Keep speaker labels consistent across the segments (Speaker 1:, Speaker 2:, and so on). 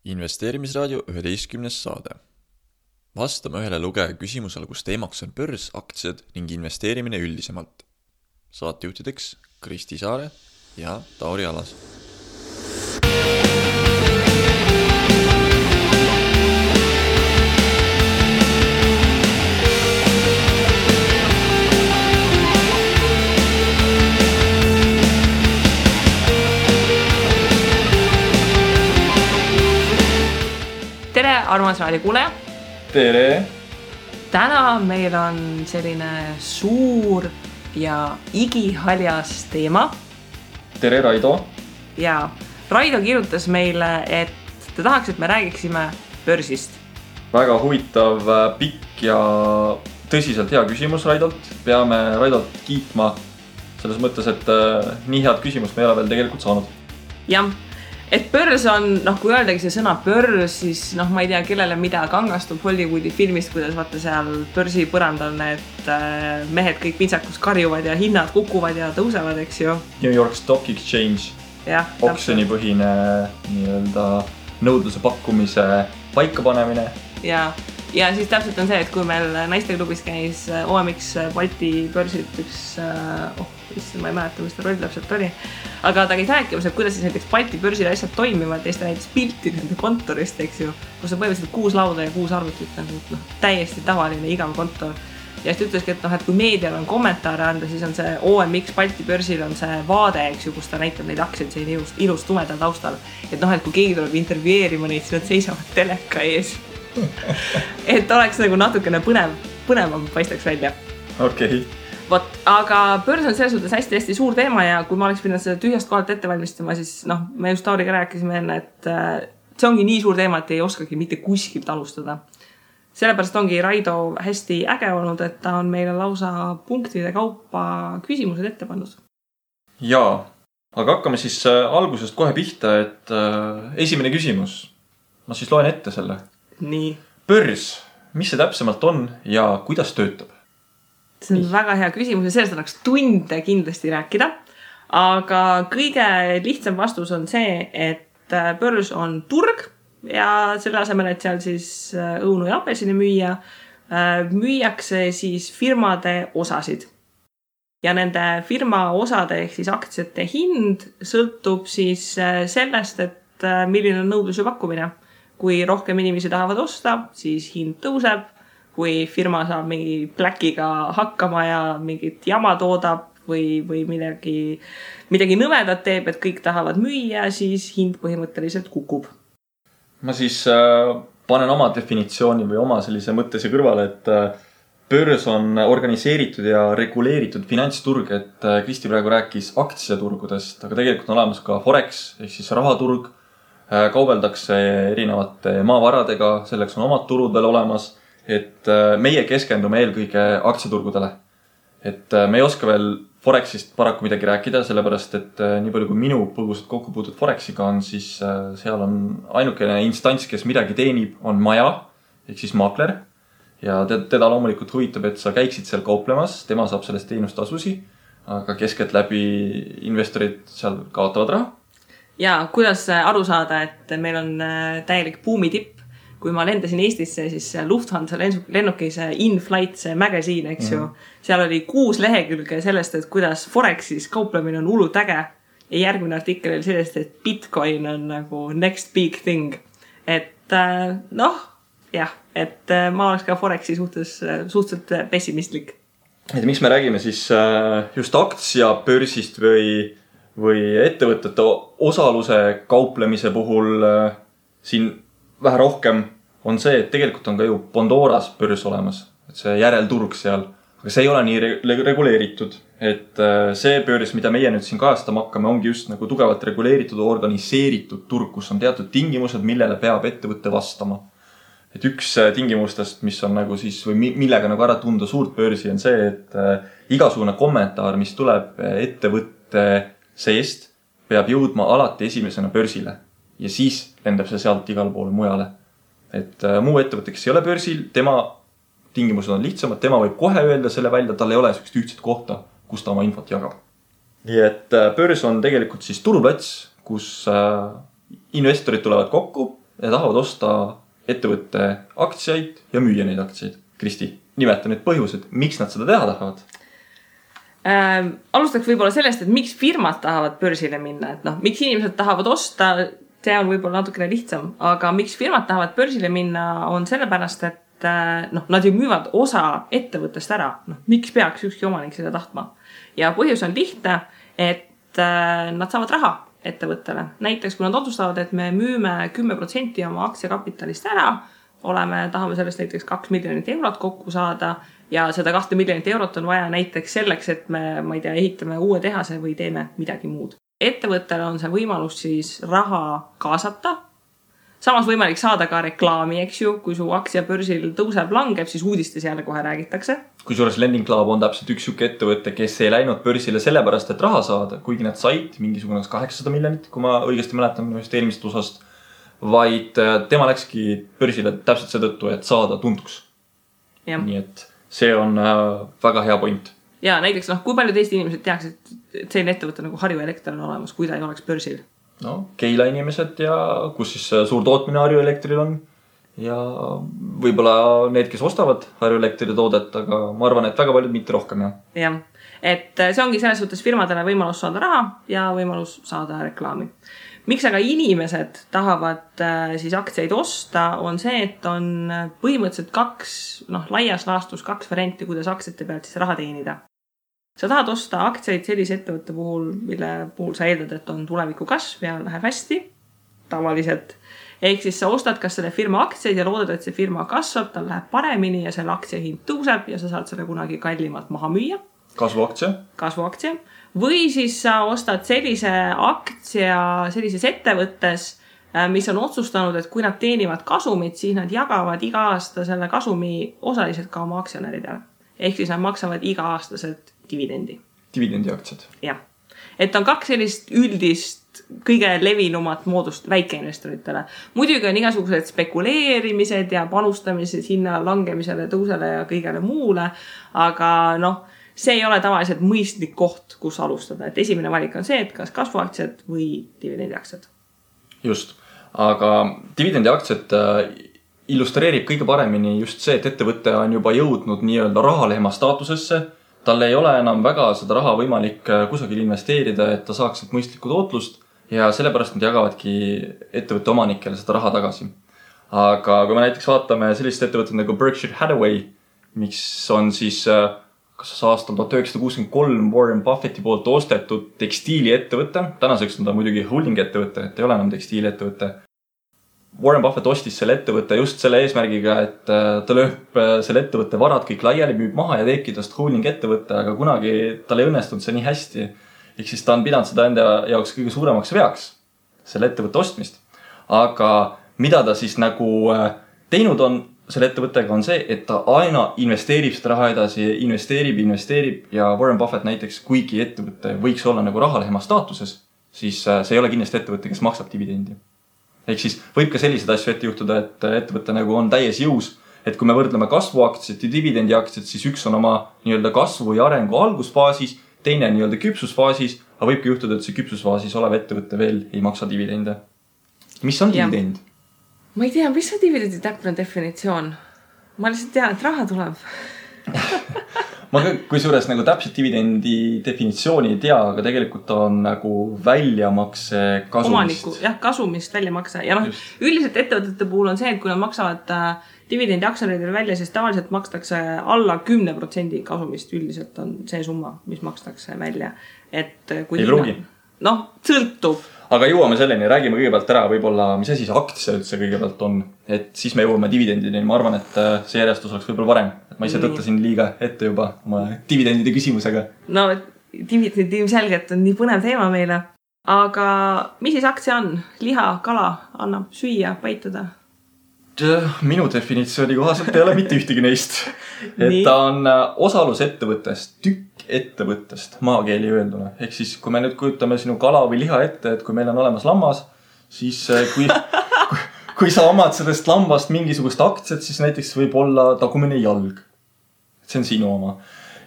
Speaker 1: Investeerimisraadio 11. saade. Vastame ühele lugeja küsimusele, kus teemaks on börs, aktsiad ning investeerimine üldisemalt. Saatejuhtideks Kristi Saare ja Tauri Alas.
Speaker 2: Tere, armas raadiokuuleja!
Speaker 3: Tere!
Speaker 2: Täna meil on selline suur ja igihaljas teema.
Speaker 3: Tere, Raido!
Speaker 2: Ja Raido kirjutas meile, et ta tahaks, et me räägiksime börsist.
Speaker 3: Väga huvitav, pikk ja tõsiselt hea küsimus Raidolt. Peame Raidolt kiitma selles mõttes, et nii head küsimust me ei ole veel tegelikult saanud.
Speaker 2: Jah. Et börs on, kui öeldagi see sõna börs, siis ma ei tea, kellele mida kangastub Hollywoodi filmist, kuidas vaata seal börsi põrandal need mehed kõik pintsakus karjuvad ja hinnad kukuvad ja tõusevad, eks ju.
Speaker 3: New York Stock Exchange, oksjonipõhine nii-öelda nõudluse pakkumise paikapanemine.
Speaker 2: Ja siis täpselt on see, et kui meil naisteklubis käis OMX Balti börsid üks, ma ei mäleta, mis ta roll täpselt oli, aga ta käis rääkimas, et kuidas siis näiteks Balti börsil asjad toimivad ja siis ta näitas pilti nende kontorist, eks ju, kus on põhimõtteliselt 6 lauda ja 6 arvutit, täiesti tavaline igav kontor. Ja siis ütleski, et kui meedial on kommentaare anda, siis on see OMX Balti börsil on see vaade, eks ju, kus ta näitab neid aktsiaid siin ilus tumedal taustal. Et kui keegi tuleb intervjueerima neid, siis nad seisavad teleka ees. Et oleks natukene põnevam paistaks välja.
Speaker 3: Okei.
Speaker 2: Aga börs on selles suhtes hästi suur teema ja kui ma oleks pidanud seda tühjast kohalt ette valmistama, siis me just Tauriga rääkisime enne, et see ongi nii suur teema, et ei oskagi mitte kuskilt alustada. Sellepärast ongi Raido hästi äge olnud, et ta on meile lausa punktide kaupa küsimused ette pannud.
Speaker 3: Jaa, aga hakkame siis algusest kohe pihta, et esimene küsimus. Ma siis loen ette selle.
Speaker 2: Nii.
Speaker 3: Börs, mis see täpsemalt on ja kuidas töötab?
Speaker 2: See on väga hea küsimus ja sellest annaks tunde kindlasti rääkida. Aga kõige lihtsam vastus on see, et börs on turg ja selle asemel, et seal siis õunu ja apelsini müüakse siis firmade osasid. Ja nende firma osade ehk siis aktsiate hind sõltub siis sellest, et milline on nõudlus ja pakkumine. Kui rohkem inimesi tahavad osta, siis hind tõuseb. Kui firma saab mingi pläkiga hakkama ja mingit jama toodab või midagi nõmedat teeb, et kõik tahavad müüa, siis hind põhimõtteliselt kukub.
Speaker 3: Ma siis panen oma definitsiooni või oma sellise mõttese kõrvale, et börs on organiseeritud ja reguleeritud finantsturg, et Kristi praegu rääkis aktsiaturgudest, aga tegelikult on olemas ka Forex, ehk siis rahaturg. Kaubeldakse erinevate maavaradega, selleks on omad turud veel olemas, et meie keskendume eelkõige aktsiaturgudele. Et me ei oska veel Forexist paraku midagi rääkida, sellepärast et nii palju kui minu põgusalt kokku puutud Forexiga on, siis seal on ainukene instants, kes midagi teenib, on maja, ehk siis maakler. Ja teda loomulikult huvitab, et sa käiksid seal kauplemas, tema saab sellest teenustasusi, aga keskelt läbi investorid seal kaotavad raha.
Speaker 2: Ja kuidas aru saada, et meil on täielik buumitipp. Kui ma lendasin Eestisse, siis Lufthansa lennukis In-Flight, see magasiin, eks ju. Seal oli 6 lehekülge sellest, et kuidas Forexis kauplemine on hullult äge. Ja järgmine artikkel oli sellest, et Bitcoin on nagu next big thing. Et et ma oleks ka Forexi suhteliselt pessimistlik.
Speaker 3: Et miks me räägime siis just aktsiabörsist või ettevõtete osaluse kauplemise puhul siin vähe rohkem on see, et tegelikult on ka ju Pandoras börs olemas, et see järelturg seal, aga see ei ole nii reguleeritud, et see börs, mida meie nüüd siin kajastama hakkame, ongi just nagu tugevalt reguleeritud, organiseeritud turg, kus on teatud tingimused, millele peab ettevõtte vastama. Et üks tingimustest, mis on nagu siis, või millega nagu ära tunda suurt börsi, on see, et igasugune kommentaar, mis tuleb ettevõtte seest, peab jõudma alati esimesena börsile ja siis lendab see sealt igal poole mujale. Et muu ettevõte, kes ei ole börsil, tema tingimused on lihtsamad, tema võib kohe öelda selle välja, tal ei ole sellist ühtset kohta, kus ta oma infot jagab. Nii et börs on tegelikult siis turuplats, kus investorid tulevad kokku, ja tahavad osta ettevõtte aktsiaid ja müüa neid aktsiaid. Kristi, nimeta need põhjused, miks nad seda teha tahavad?
Speaker 2: Alustaks võib-olla sellest, et miks firmad tahavad börsile minna, et miks inimesed tahavad osta, see on võib-olla natukene lihtsam, aga miks firmad tahavad börsile minna on sellepärast, et nad ju müüvad osa ettevõttest ära. Miks peaks ükski omanik seda tahtma? Ja põhjus on lihtne, et nad saavad raha ettevõttele. Näiteks, kui nad otsustavad, et me müüme 10% oma aktsiakapitalist ära, tahame sellest näiteks 2 miljonit eurot kokku saada ja seda 2 miljonit eurot on vaja näiteks selleks, et me ehitame uue tehase või teeme midagi muud. Ettevõttele on see võimalus siis raha kaasata. Samas võimalik saada ka reklaami, eks ju, kui su aktsia börsil tõuseb, langeb, siis uudistes jälle kohe räägitakse.
Speaker 3: Kusjuures Lending Club on täpselt üks siuke ettevõtte, kes ei läinud börsile sellepärast, et raha saada, kuigi nad said mingisugune 800 miljonit, kui ma õigesti mäletan ühest eelmisest osast, vaid tema läkski börsile täpselt seetõttu, et saada tuntuks.
Speaker 2: Ja.
Speaker 3: Nii et see on väga hea point.
Speaker 2: Ja näiteks, kui palju teist inimesed teaks, et selline ettevõte nagu Harju Elekter on olemas, kui ta ei oleks börsil?
Speaker 3: Keila inimesed ja kus siis suur tootmine Harju Elektril on ja võib-olla need, kes ostavad Harju Elektri toodet, aga ma arvan, et väga paljud mitte rohkem.
Speaker 2: Jah, et see ongi selles suhtes firmadele võimalus saada raha ja võimalus saada reklaami. Miks aga inimesed tahavad siis aktsiaid osta, on see, et on põhimõtteliselt laias laastus 2 varianti, kuidas aktsiate pealt siis raha teenida. Sa tahad osta aktsiaid sellise ettevõtte puhul, mille puhul sa eeldad, et on tuleviku kasv ja läheb hästi, tavaliselt. Ehk siis sa ostad kas selle firma aktsiaid ja loodad, et see firma kasvab, tal läheb paremini ja selle aktsia hind tõuseb ja sa saad selle kunagi kallimalt maha müüa. Kasvuaktsia. Või siis sa ostad sellise aktsia sellises ettevõttes, mis on otsustanud, et kui nad teenivad kasumit, siis nad jagavad iga aasta selle kasumi osaliselt ka oma aktsionäridele. Ehk siis nad maksavad iga-aastaselt dividendi.
Speaker 3: Dividendiaktsiad.
Speaker 2: Jah. Et on 2 sellist üldist kõige levinumat moodust väikeinvestoritele. Muidugi on igasugused spekuleerimised ja panustamised hinna langemisele, tõusele ja kõigele muule, aga see ei ole tavaliselt mõistlik koht, kus alustada. Et esimene valik on see, et kas kasvuaktsiad või dividendiaktsiad.
Speaker 3: Just, aga dividendiaktsiad illustreerib kõige paremini just see, et ettevõte on juba jõudnud nii-öelda rahalehma staatusesse. Tal ei ole enam väga seda raha võimalik kusagil investeerida, et ta saaks mõistlikku tootlust ja sellepärast nad jagavadki ettevõtte omanikele seda raha tagasi. Aga kui me näiteks vaatame sellist ettevõtet nagu Berkshire Hathaway, mis on siis kas aastal 1963 Warren Buffetti poolt ostetud tekstiiliettevõte, tänaseks on ta muidugi holding ettevõte, et ei ole enam tekstiiliettevõte. Warren Buffett ostis selle ettevõtte just selle eesmärgiga, et ta lööb selle ettevõtte varad kõik laiali, müüb maha ja teebki tast holding ettevõtte, aga kunagi tal ei õnnestunud see nii hästi. Ehk siis ta on pidanud seda enda jaoks kõige suuremaks veaks, selle ettevõtte ostmist. Aga mida ta siis nagu teinud on selle ettevõttega on see, et ta aina investeerib seda raha edasi, investeerib ja Warren Buffett näiteks, kuigi ettevõtte võiks olla nagu rahalehma staatuses, siis see ei ole kindlasti ettevõtte, kes maksab dividendi. Ehk siis võib ka sellised asju ette juhtuda, et ettevõte nagu on täies jõus, et kui me võrdleme kasvuaktsiat ja dividendiaktsiat, siis üks on oma nii-öelda kasvu ja arengu algusfaasis, teine nii-öelda küpsusfaasis, aga võibki juhtuda, et see küpsusfaasis olev ettevõte veel ei maksa dividende. Mis on dividend?
Speaker 2: Ma ei tea, mis on dividendi täpne definitsioon? Ma lihtsalt tean, et raha tuleb.
Speaker 3: Ma kusjuures nagu täpselt dividendi definitsiooni ei tea, aga tegelikult on nagu väljamakse kasumist.
Speaker 2: Omaniku, jah, kasumist väljamakse. Ja üldiselt ettevõtete puhul on see, et kui nad maksavad dividendi aktsionäridele välja, siis tavaliselt makstakse alla 10% kasumist. Üldiselt on see summa, mis makstakse välja. Et kui
Speaker 3: ei pruugi.
Speaker 2: Sõltub.
Speaker 3: Aga jõuame selleni, räägime kõigepealt ära võib-olla, mis asi see aktsia üldse kõigepealt on. Et siis me jõuame dividendini. Ma arvan, et see järjestus oleks võib-olla varem. Et ma ise tõttasin liiga ette juba oma dividendide küsimusega.
Speaker 2: No, dividend ilmselgelt on nii põnev teema meile. Aga mis siis aktsia on? Liha, kala annab süüa, päituda?
Speaker 3: Minu definitsiooni kohaselt ei ole mitte ühtegi neist. Et ta on osalusettevõttest, tükk ettevõttest, maakeeli öelduna. Ehk siis, kui me nüüd kujutame sinu kala või liha ette, et kui meil on olemas lammas, siis kui sa omad sellest lambast mingisugust aktsiat, siis näiteks võib olla tagumine jalg. See on sinu oma.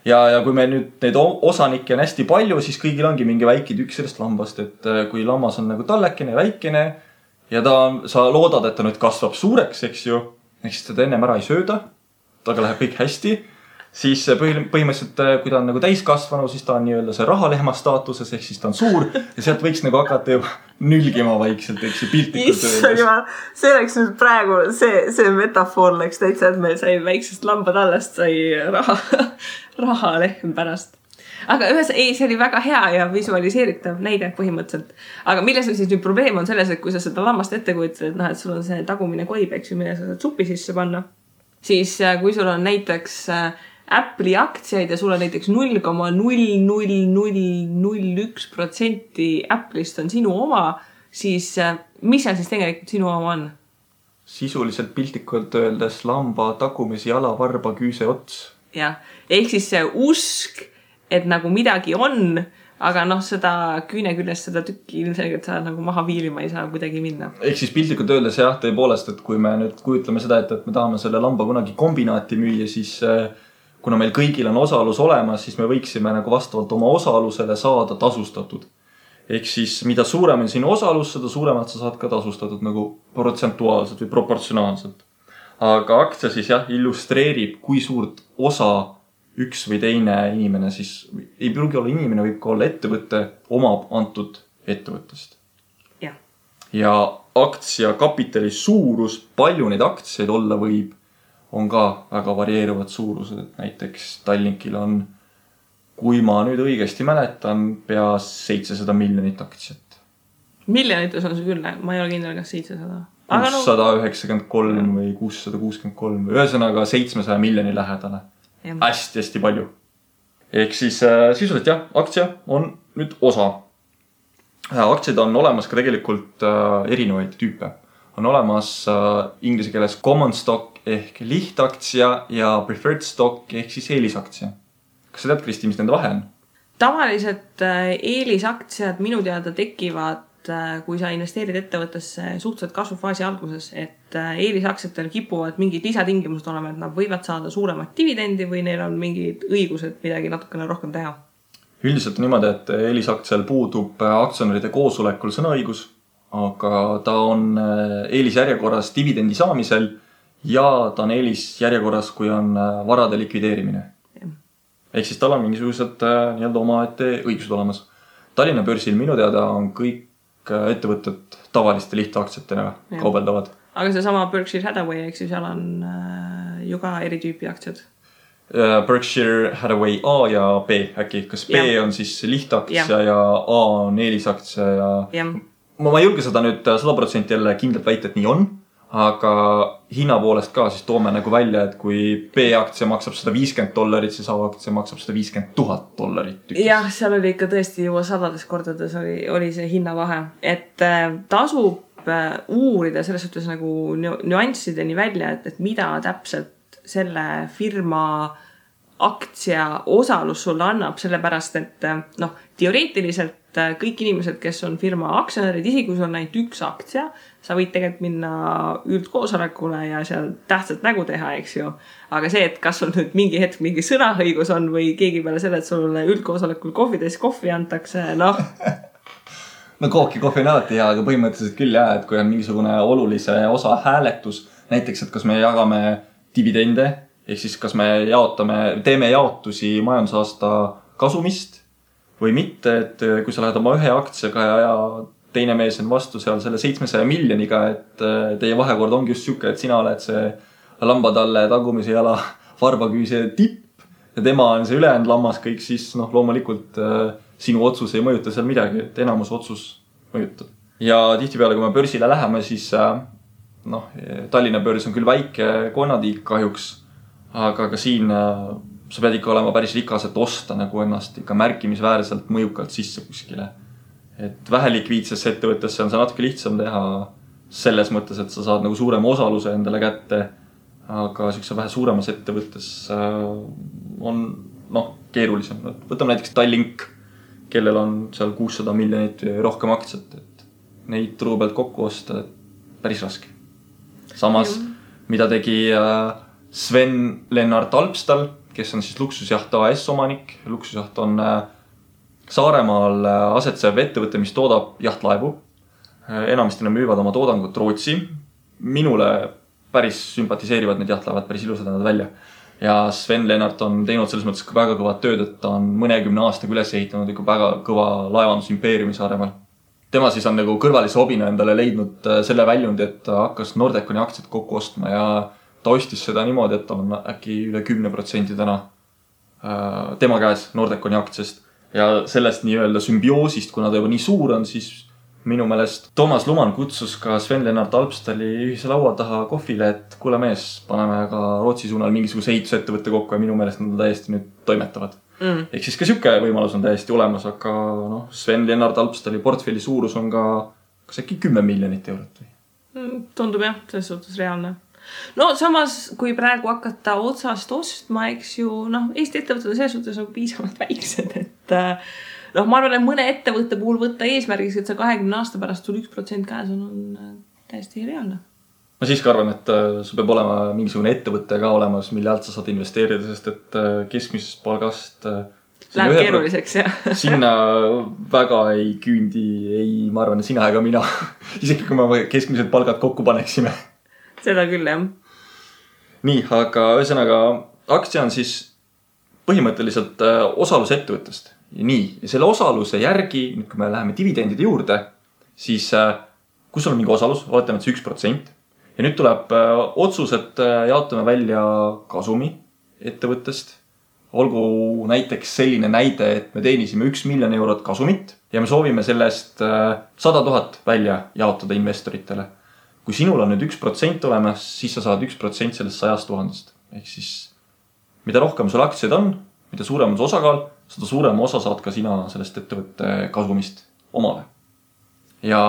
Speaker 3: Ja kui me nüüd neid osanikke on hästi palju, siis kõigil ongi mingi väike tükk sellest lambast, et kui lammas on nagu tallekene, väikene, ja sa loodad, et ta nüüd kasvab suureks, eks ju. Ehk siis teda ennem ära ei sööda. Taga läheb kõik hästi. Siis põhimõtteliselt, kui ta on nagu täiskasvanu, siis ta on nii-öelda see rahalehma staatuses, ehk siis ta on suur ja sealt võiks nagu hakata juba nülgima vaikselt, eks ju, piltlikult öeldes.
Speaker 2: See oleks nüüd praegu, see metafoor läks täitsa, et meil sai väiksest lambadallast sai rahalehm pärast. Aga see oli väga hea ja visualiseeritav näide põhimõtteliselt. Aga milles on siis nüüd probleem on selles, et kui sa seda lammast ette kujutad, et sul on see tagumine koib, eks ju, mille sa saad supi sisse panna, siis kui sul on näiteks Apple'i aktsiaid ja sul on näiteks 0,00001% Apple'ist on sinu oma, siis mis seal siis tegelikult sinu oma on?
Speaker 3: Sisuliselt piltlikult öeldes lamba tagumise jala varba küüse ots.
Speaker 2: Jah, ehk siis see usk, et nagu midagi on, aga seda küüne küljest seda tükki ilmselgelt sa nagu maha viilima ei saa kuidagi minna.
Speaker 3: Ehk siis piltlikult öeldes jah, tõepoolest, et kui me nüüd kujutleme seda, et me tahame selle lamba kunagi kombinaati müüa, siis kuna meil kõigil on osalus olemas, siis me võiksime nagu vastavalt oma osalusele saada tasustatud. Ehk siis mida suurem on sinu osalus, seda suuremalt sa saad ka tasustatud nagu protsentuaalselt või proportsionaalselt. Aga aktsia siis jah, illustreerib, kui suurt osa üks või teine inimene siis, ei pruugi olla inimene, võib ka olla ettevõtte, omab antud ettevõttest. Ja aktsia kapitali suurus, palju neid aktsiaid olla võib, on ka väga varieeruvad suurused, et näiteks Tallinkil on, kui ma nüüd õigesti mäletan, pea 700 miljonit aktsiat.
Speaker 2: Miljonites on see küll, ma ei ole kindel, kas 700.
Speaker 3: 693 või 663 või ühesõnaga 700 miljoni lähedale. Hästi palju. Ehk siis sisuliselt jah, aktsia on nüüd osa. Aktsiaid on olemas ka tegelikult erinevaid tüüpe. On olemas inglise keeles common stock ehk lihtaktsia ja preferred stock ehk siis eelisaktsia. Kas sa tead, Kristi, mis nende vahe on?
Speaker 2: Tavaliselt eelisaktsiad minu teada tekivad, kui sa investeerid ettevõttesse suhteliselt kasvufaasi alguses, et eelisaktsiatel kipuvad mingid lisatingimused olema, et nad võivad saada suuremat dividendi või neil on mingid õigused midagi natukene rohkem teha.
Speaker 3: Üldiselt on niimoodi, et eelisaktsial puudub aktsionäride koosolekul sõnaõigus, aga ta on eelisjärjekorras dividendi saamisel ja ta on eelisjärjekorras, kui on varade likvideerimine. Ehk siis tal on mingisugused nii-öelda omaette õigused olemas. Tallinna börsil minu teada on kõik ettevõtted tavaliste lihtaktsiatena kaubeldavad.
Speaker 2: Aga see sama Berkshire Hathaway, eks ju, seal on ju ka eri tüüpi aktsiad.
Speaker 3: Berkshire Hathaway A ja B äkki. Kas B on siis lihtaktsia ja A on eelisaktsia ja... Ma ei julge seda nüüd 100% jälle kindlalt väita, et nii on, aga hinna poolest ka siis toome nagu välja, et kui B-aktsia maksab $150, siis A-aktsia maksab $150,000.
Speaker 2: Jah, seal oli ikka tõesti juba sadades kordades oli see hinnavahe, et tasub uurida selles suhtes nagu nüanssideni välja, et mida täpselt selle firma aktsia osalus sulle annab, sellepärast, et teoreetiliselt kõik inimesed, kes on firma aktsionärid, isegi kui sul on ainult üks aktsia, sa võid tegelikult minna üldkoosolekule ja seal tähtsat nägu teha, eks ju. Aga see, et kas sul nüüd mingi hetk mingi sõnaõigus on või keegi peale selle, et sulle üldkoosolekul kohvi antakse, No
Speaker 3: kohvi on alati hea, aga põhimõtteliselt küll jah, et kui on mingisugune olulise osa hääletus, näiteks, et kas me jagame dividende, ehk siis kas me teeme jaotusi majandusaasta kasumist või mitte, et kui sa lähed oma ühe aktsiaga ja teine mees on vastu seal selle 700 miljoniga, et teie vahekord ongi just siuke, et sina oled see lambatalle tagumise jala varbaküüse tipp ja tema on see ülejäänud lammas kõik, siis loomulikult sinu otsus ei mõjuta seal midagi, et enamus otsus mõjutab. Ja tihtipeale, kui me börsile läheme, siis Tallinna börs on küll väike konnatiik kahjuks, aga ka siin sa pead ikka olema päris rikas, et osta nagu ennast ikka märkimisväärselt mõjukalt sisse kuskile. Et vähelikviidsesse ettevõttesse on see natuke lihtsam teha selles mõttes, et sa saad nagu suurema osaluse endale kätte, aga siukse vähe suuremas ettevõttes on keerulisem. Võtame näiteks Tallink, kellel on seal 600 miljonit rohkem aktsiat, et neid turu pealt kokku osta päris raske. Samas, mida tegi Sven Lennart Alpstal, kes on siis Luksusjaht AS omanik. Luksusjaht on Saaremaal asetsev ettevõte, mis toodab jahtlaevu. enamasti nad müüvad oma toodangut Rootsi. Minule päris sümpatiseerivad need lähevad päris ilusad nad välja. Ja Sven Lennart on teinud selles mõttes väga kõvad tööd, et ta on mõnekümne aastaga üles ehitanud ikka väga kõva laevandusimpeeriumi Saaremaal. Tema siis on nagu kõrvalise hobina endale leidnud selle väljundi, et ta hakkas Nordeconi aktsiat kokku ostma ja ta ostis seda niimoodi, et ta on äkki üle 10% täna tema käes Nordeconi aktsiast. Ja sellest nii-öelda symbioosist, kuna ta juba nii suur on, siis minu meelest Toomas Luman kutsus ka Sven Lennart Alpstali ühise laua taha kohvile, et kuule mees, paneme ka Rootsi suunal mingisuguse ehitusettevõtte kokku ja minu meelest nad täiesti nüüd toimetavad. Ehk siis ka siuke võimalus on täiesti olemas, aga Sven Lennart Alpstali portfelli suurus on ka kas äkki 10 miljonit eurot või?
Speaker 2: Tundub jah, selles suhtes reaalne. No samas, kui praegu hakata otsast ostma, eks ju, Eesti ettevõtted on selles suhtes piisavalt väiksed, et ma arvan, et mõne ettevõtte puhul võtta eesmärgiks, et see 20 aasta pärast sul 1% käes on täiesti reaalne.
Speaker 3: Ma siiski arvan, et sul peab olema mingisugune ettevõte ka olemas, mille alt sa saad investeerida, sest et keskmisest palgast
Speaker 2: läheb keeruliseks, jah.
Speaker 3: Sinna väga ei küündi, ma arvan, sina ega mina. Isegi kui me keskmised palgad kokku paneksime.
Speaker 2: Seda küll, jah.
Speaker 3: Nii, aga ühesõnaga aktsia on siis põhimõtteliselt osalus ettevõttest. Ja nii, ja selle osaluse järgi, nüüd kui me läheme dividendide juurde, siis kui sul on mingi osalus, oletame, et see 1%. Ja nüüd tuleb otsus, et jaotame välja kasumi ettevõttest. Olgu näiteks selline näide, et me teenisime 1 miljon eurot kasumit ja me soovime sellest 100 000 välja jaotada investoritele. Kui sinul on nüüd 1% olemas, siis sa saad 1% sellest 100 000. Ehk siis, mida rohkem sul aktsiaid on, mida suurem on osakaal, seda suurem osa saad ka sina sellest ettevõtte kasumist omale. Ja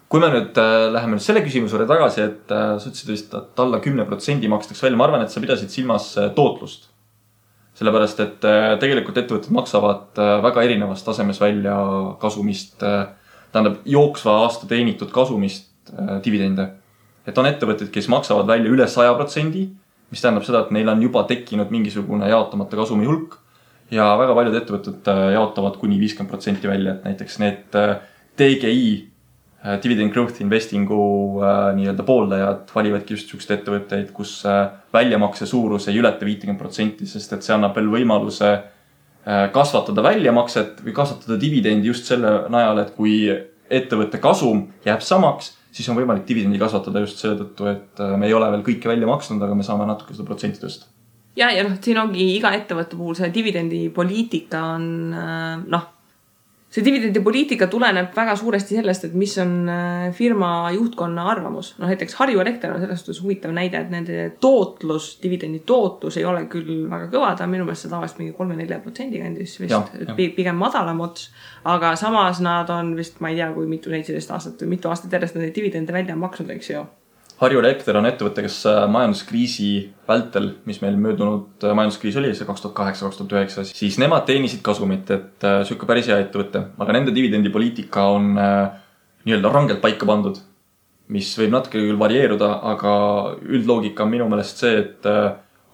Speaker 3: kui me nüüd läheme nüüd selle küsimusele tagasi, et sa ütlesid vist, et alla 10% makstaks välja, ma arvan, et sa pidasid silmas tootlust. Sellepärast, et tegelikult ettevõtted maksavad väga erinevas tasemes välja kasumist, tähendab jooksva aasta teenitud kasumist dividende. Et on ettevõtted, kes maksavad välja üle 100%, mis tähendab seda, et neil on juba tekkinud mingisugune jaotamata kasumi hulk ja väga paljud ettevõtted jaotavad kuni 50% välja, et näiteks need DGI Dividend Growth Investingu nii-öelda pooldajad valivadki just sellised ettevõtteid, kus väljamakse suurus ei ületa 50%, sest et see annab veel võimaluse kasvatada väljamakset või kasvatada dividendi just selle najal, et kui ettevõtte kasum jääb samaks, siis on võimalik dividendi kasvatada just selle tõttu, et me ei ole veel kõike välja maksnud, aga me saame natuke seda protsenti tõsta.
Speaker 2: Ja siin ongi iga ettevõtte puhul see dividendi poliitika on, see dividendi poliitika tuleneb väga suuresti sellest, et mis on firma juhtkonna arvamus. Näiteks Harju Elekter on sellest huvitav näide, et nende tootlus, dividendi tootlus ei ole küll väga kõva, ta on minu meelest tavaliselt mingi 3-4% kandis vist, pigem madalam ots, aga samas nad on vist, ma ei tea, kui mitu 17 aastat või mitu aastat järjest nad dividende välja maksnud, eks ju.
Speaker 3: Harju Elekter on ettevõte, kes majanduskriisi vältel, mis meil möödunud majanduskriis oli, see 2008-2009, siis nemad teenisid kasumit, et sükke päris hea ettevõte, aga nende dividendipoliitika on nii-öelda rangelt paika pandud, mis võib natuke küll varieeruda, aga üldloogika on minu meelest see, et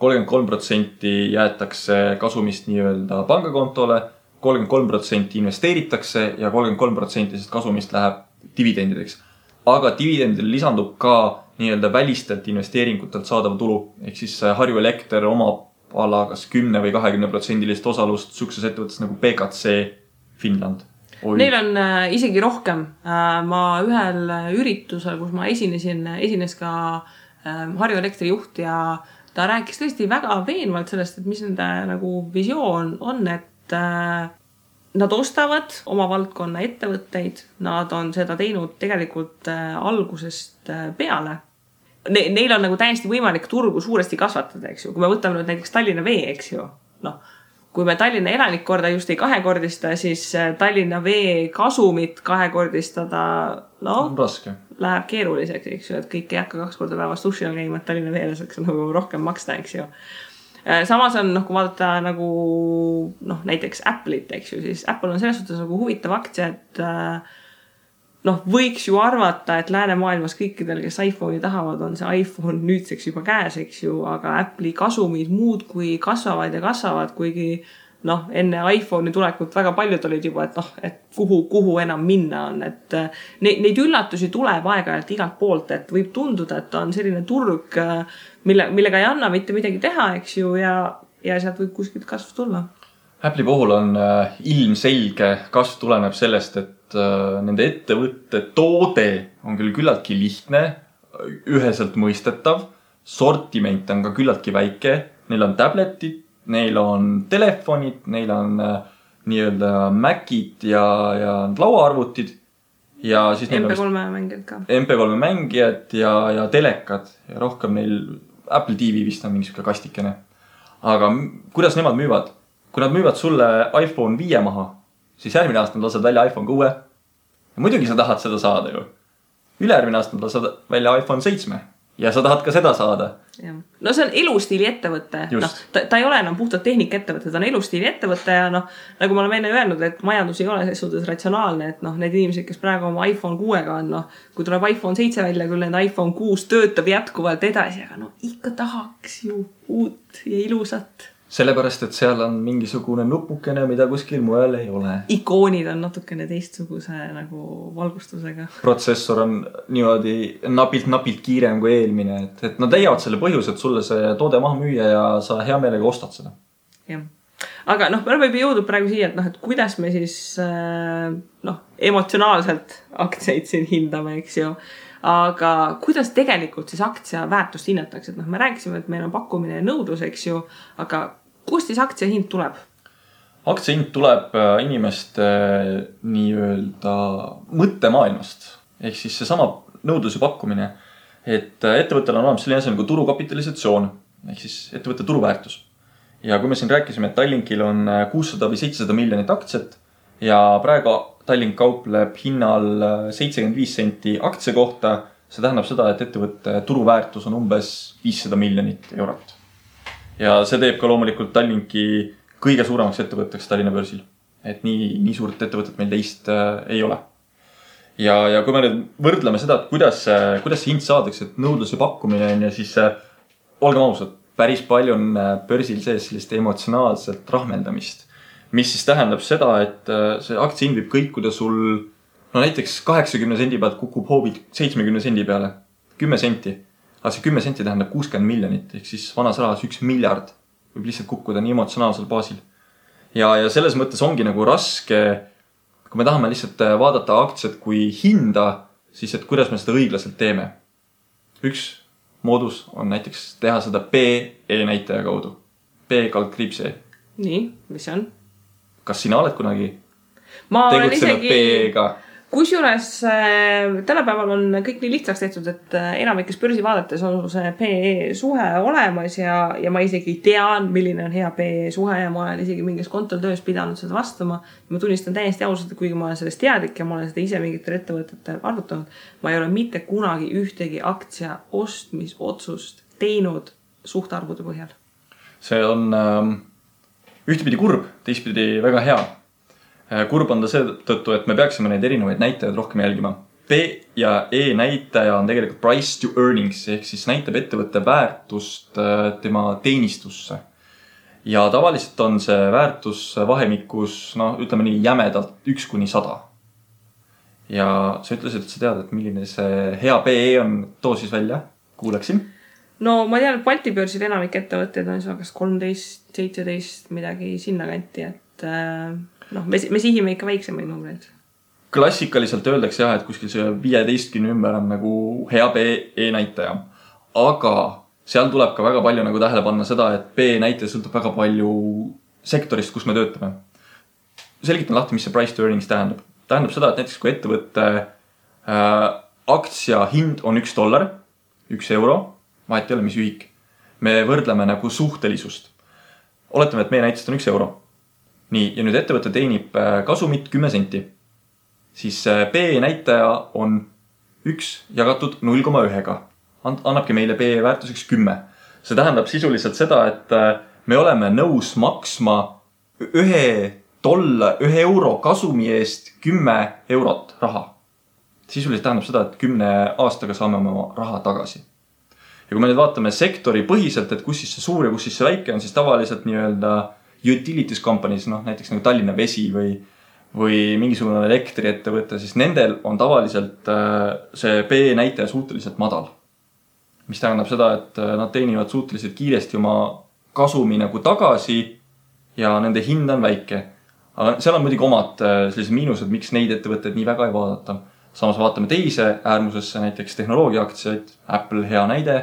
Speaker 3: 33% jäetakse kasumist nii-öelda pangakontole, 33% investeeritakse ja 33% kasumist läheb dividendideks. Aga dividendile lisandub ka nii-öelda välistelt investeeringutelt saadav tulu. Ehk siis Harju Elekter omab ala kas 10 või 20% osalust sukses ettevõttes nagu PKC Finland.
Speaker 2: Neil on isegi rohkem. Ma ühel üritusel, kus ma esines ka Harju Elektri juht ja ta rääkis tõesti väga veenvalt sellest, et mis nende nagu visioon on, et nad ostavad oma valdkonna ettevõtteid, nad on seda teinud tegelikult algusest peale. Neil on nagu täiesti võimalik turgu suuresti kasvatada, eks ju. Kui me võtame nüüd näiteks Tallinna Vee, eks ju. Kui me Tallinna elanikkorda just ei kahekordista, siis Tallinna Vee kasumit kahekordistada,
Speaker 3: raske.
Speaker 2: Läheb keeruliseks, eks ju, et kõik ei hakka 2 korda päevas duši all käima, et Tallinna Veele saaks nagu rohkem maksta, eks ju. Samas on, kui vaadata nagu näiteks Apple'it, eks ju, siis Apple on selles suhtes nagu huvitav aktsia, et võiks ju arvata, et läänemaailmas kõikidel, kes iPhone'i tahavad, on see iPhone nüüdseks juba käes, eks ju, aga Apple'i kasumid muud kui kasvavad ja kasvavad, kuigi noh, enne iPhone'i tulekut väga paljud olid juba, et noh, et kuhu enam minna on, et neid üllatusi tuleb aeg-ajalt igalt poolt, et võib tunduda, et on selline turg, millega ei anna mitte midagi teha, eks ju, ja sealt võib kuskilt kasv tulla.
Speaker 3: Apple'i puhul on ilmselge kasv tuleneb sellest, et nende ettevõtte toode on küll küllaltki lihtne, üheselt mõistetav, sortiment on ka küllaltki väike, neil on tabletid, neil on telefonid, neil on nii-öelda Macid ja lauaarvutid ja siis neil
Speaker 2: MP3 mängijad ka.
Speaker 3: MP3 mängijad ja telekad ja rohkem neil Apple TV vist on mingisugune kastikene. Aga kuidas nemad müüvad? Kui nad müüvad sulle iPhone 5 maha, siis järgmine aasta nad lased välja iPhone 6. Ja muidugi sa tahad seda saada ju. Ülejärgmine aasta nad lased välja iPhone 7 ja sa tahad ka seda saada.
Speaker 2: Ja. No see on elustiili ettevõte. No, ta ei ole enam puhtalt tehnika ettevõte, ta on elustiili ettevõte ja noh, nagu ma olen enne öelnud, et majandus ei ole selles suhtes ratsionaalne, et noh, need inimesed, kes praegu oma iPhone 6-ga on, noh, kui tuleb iPhone 7 välja, küll need iPhone 6 töötab jätkuvalt edasi, aga no ikka tahaks ju uut ja ilusat.
Speaker 3: Sellepärast, et seal on mingisugune nupukene, mida kuskil mujal ei ole.
Speaker 2: Ikoonid on natukene teistsuguse nagu valgustusega.
Speaker 3: Protsessor on niimoodi napilt kiirem kui eelmine, et nad leiavad selle põhjus, et sulle see toode maha müüa ja sa hea meelega ostad seda.
Speaker 2: Jah. Aga noh, me oleme juba jõudnud praegu siia, et noh, et kuidas me siis noh, emotsionaalselt aktsiaid siin hindame, eks ju. Aga kuidas tegelikult siis aktsia väärtust hinnatakse? Et noh, me rääkisime, et meil on pakkumine ja nõudlus, eks ju, aga kust siis aktsia hind tuleb?
Speaker 3: Aktsia hind tuleb inimeste nii-öelda mõttemaailmast. Ehk siis see sama nõudluse pakkumine, et ettevõttel on olemas selline asi nagu turukapitalisatsioon, ehk siis ettevõtte turuväärtus. Ja kui me siin rääkisime, et Tallinkil on 600 või 700 miljonit aktsiat ja praegu Tallink kaupleb hinnal 75 senti aktsia kohta, see tähendab seda, et ettevõtte turuväärtus on umbes 500 miljonit eurot. Ja see teeb ka loomulikult Tallinki kõige suuremaks ettevõtteks Tallinna börsil. Et nii suurt ettevõtet meil teist ei ole. Ja kui me nüüd võrdleme seda, et kuidas see hind saadakse, et nõudlus ja pakkumine on ja siis olgem ausad, päris palju on börsil sees sellist emotsionaalselt rahmeldamist. Mis siis tähendab seda, et see aktsia hind võib kõikuda sul, no näiteks 80 sendi pealt kukub hoobid 70 sendi peale, 10 senti. Aga see 10 senti tähendab 60 miljonit, ehk siis vanas rahas 1 miljard võib lihtsalt kukkuda nii emotsionaalsel baasil. Ja selles mõttes ongi nagu raske, kui me tahame lihtsalt vaadata aktsiat kui hinda, siis et kuidas me seda õiglaselt teeme. Üks moodus on näiteks teha seda PE näitaja kaudu. P-kaldkriipse.
Speaker 2: Nii, mis see on?
Speaker 3: Kas sina oled kunagi
Speaker 2: tegutsenud
Speaker 3: PE-ga?
Speaker 2: Kusjuures tänapäeval on kõik nii lihtsaks tehtud, et enamikes börsi vaadates on see PE suhe olemas ja ma isegi tean, milline on hea PE suhe ja ma olen isegi mingis kontol töös pidanud seda vastama. Ma tunnistan täiesti ausalt, et kuigi ma olen sellest teadlik ja ma olen seda ise mingitel ettevõtetel arvutanud, ma ei ole mitte kunagi ühtegi aktsia ostmisotsust teinud suhtarvude põhjal.
Speaker 3: See on ühtepidi kurb, teistpidi väga hea. Kurb on ta seetõttu, et me peaksime neid erinevaid näitajaid rohkem jälgima. P ja E näitaja on tegelikult price to earnings, ehk siis näitab ettevõtte väärtust tema teenistusse. Ja tavaliselt on see väärtus vahemikus, ütleme nii jämedalt 1–100. Ja sa ütlesid, et sa tead, et milline see hea PE on, too siis välja, kuuleksin.
Speaker 2: No ma tean, et Balti börsil enamik ettevõtteid on kas 13, 17 midagi sinna kanti, et me sihime ikka väiksemaid numbreid.
Speaker 3: Klassikaliselt öeldakse jah, et kuskil see 15 ümber on nagu hea PE näitaja. Aga seal tuleb ka väga palju nagu tähele panna seda, et PE näitaja sõltub väga palju sektorist, kus me töötame. Selgitan lahti, mis see price to earnings tähendab. Tähendab seda, et näiteks kui ettevõtte aktsia hind on $1, 1 euro, vahet ei ole, mis ühik. Me võrdleme nagu suhtelisust. Oletame, et meie näitest on 1 euro. Nii, ja nüüd ettevõte teenib kasumit 10 senti. Siis PE näitaja on 1 jagatud 0,1. Annabki meile PE väärtuseks 10. See tähendab sisuliselt seda, et me oleme nõus maksma 1 euro kasumi eest 10 eurot raha. Sisuliselt tähendab seda, et 10 aastaga saame oma raha tagasi. Ja kui me nüüd vaatame sektori põhiselt, et kus siis see suur ja kus siis see väike on, siis tavaliselt nii-öelda utilities companies, näiteks nagu Tallinna Vesi või mingisugune elektriettevõte, siis nendel on tavaliselt see PE näitaja suhteliselt madal. Mis tähendab seda, et nad teenivad suhteliselt kiiresti oma kasumi nagu tagasi ja nende hind on väike. Aga seal on muidugi omad sellised miinused, miks neid ettevõtteid nii väga ei vaadata. Samas vaatame teise äärmusesse, näiteks tehnoloogiaaktsiaid, Apple hea näide,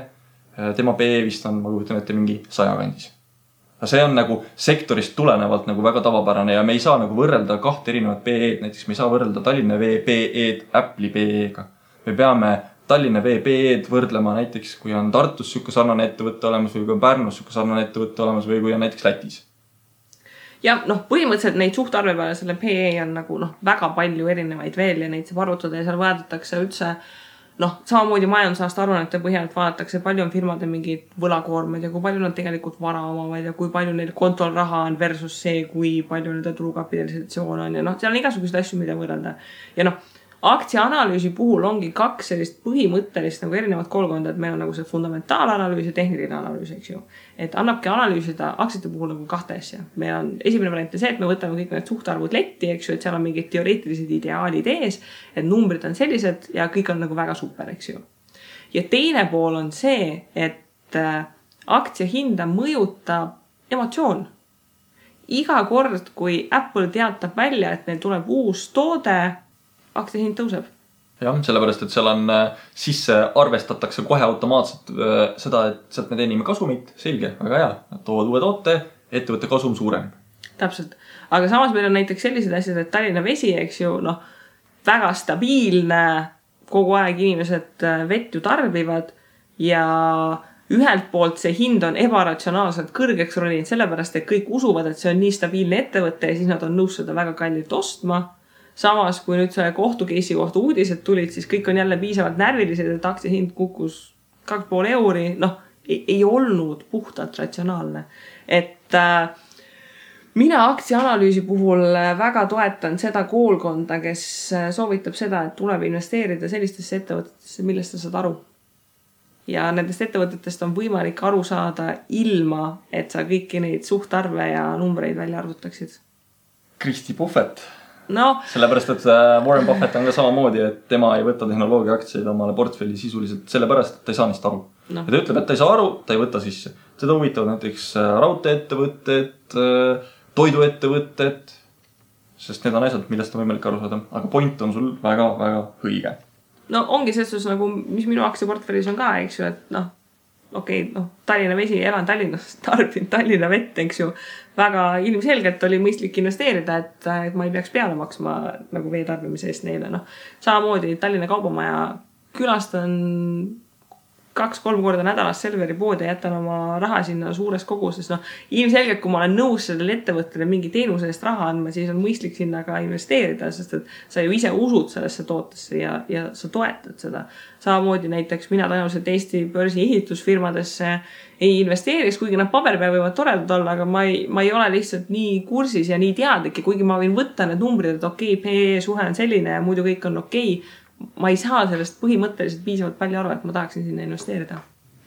Speaker 3: tema PE vist on, ma kujutan ette, mingi 100 kandis. See on nagu sektorist tulenevalt nagu väga tavapärane ja me ei saa nagu võrrelda kahte erinevat PE-d, näiteks me ei saa võrrelda Tallinna Vee PE-d Apple'i PE-ga. Me peame Tallinna Vee PE-d võrdlema näiteks, kui on Tartus siuke sarnane ettevõtte olemas või kui on Pärnus siuke sarnane ettevõtte olemas või kui on näiteks Lätis.
Speaker 2: Ja põhimõtteliselt neid suhtarve peale selle PE on nagu väga palju erinevaid veel ja neid saab arvutada ja seal vaadatakse üldse samamoodi majandusaasta aruannete põhjalt vaadatakse, palju on firmade mingid võlakoormed ja kui palju nad tegelikult vara omavad ja kui palju neil kontol raha on versus see, kui palju nende turukapitalisatsioon on ja seal on igasuguseid asju, mida võrrelda. Ja aktsiaanalüüsi puhul ongi kaks sellist põhimõttelist nagu erinevat koolkonda, et meil on nagu see fundamentaalanalüüs ja tehniline analüüs, eks ju. Et annabki analüüsida aktsiate puhul nagu kahte asja. Meil on esimene variant see, et me võtame kõik need suhtarvud letti, eks ju, et seal on mingid teoreetilised ideaalid ees, et numbrid on sellised ja kõik on nagu väga super, eks ju. Ja teine pool on see, et aktsia hinda mõjutab emotsioon. Iga kord, kui Apple teatab välja, et neil tuleb uus toode, aktsia hind tõuseb.
Speaker 3: Jah, sellepärast, et seal on sisse arvestatakse kohe automaatselt seda, et sealt me teenime kasumit, selge, väga hea. Nad toovad uue toote, ettevõtte kasum suurem.
Speaker 2: Täpselt. Aga samas meil on näiteks sellised asjad, et Tallinna Vesi, eks ju, väga stabiilne, kogu aeg inimesed vett ju tarbivad ja ühelt poolt see hind on ebaratsionaalselt kõrgeks roninud sellepärast, et kõik usuvad, et see on nii stabiilne ettevõte ja siis nad on nõus seda väga kallilt ostma. Samas, kui nüüd selle kohtukeisi kohta uudised tulid, siis kõik on jälle piisavalt närvilised, et aktsia hind kukkus 2,5 euri. Ei olnud puhtalt ratsionaalne. Et mina aktsiaanalüüsi puhul väga toetan seda koolkonda, kes soovitab seda, et tuleb investeerida sellistesse ettevõtetesse, millest sa saad aru. Ja nendest ettevõtetest on võimalik aru saada ilma, et sa kõiki neid suhtarve ja numbreid välja arvutaksid.
Speaker 3: Kristi Puhvet. Sellepärast, et Warren Buffett on ka samamoodi, et tema ei võta tehnoloogia aktsiaid omale portfelli sisuliselt sellepärast, et ta ei saa neist aru. Ja ta ütleb, et ta ei saa aru, ta ei võta sisse. Seda huvitavad näiteks raudteeettevõtted, toiduettevõtted, sest need on asjad, millest on võimalik aru saada. Aga point on sul väga, väga õige.
Speaker 2: Ongi selles nagu, mis minu aktsiaportfellis on ka, eks ju, et Tallinna Vesi, elan Tallinnas, tarbin Tallinna vett, eks ju. Väga ilmselgelt oli mõistlik investeerida, et ma ei peaks peale maksma nagu veetarbimise eest neile. Samamoodi Tallinna Kaubamaja külastan 2-3 korda nädalas Selveri poodi ja jätan oma raha sinna suures koguses. Ilmselgelt, kui ma olen nõus sellele ettevõttele mingi teenuse eest raha andma, siis on mõistlik sinna ka investeerida, sest et sa ju ise usud sellesse tootesse ja sa toetad seda. Samamoodi näiteks mina tõenäoliselt Eesti börsi ehitusfirmadesse ei investeeriks, kuigi nad paberi peal võivad toredad olla, aga ma ei ole lihtsalt nii kursis ja nii teadlik ja kuigi ma võin võtta need numbrid, et PE suhe on selline ja muidu kõik on ma ei saa sellest põhimõtteliselt piisavalt palju aru, et ma tahaksin sinna investeerida.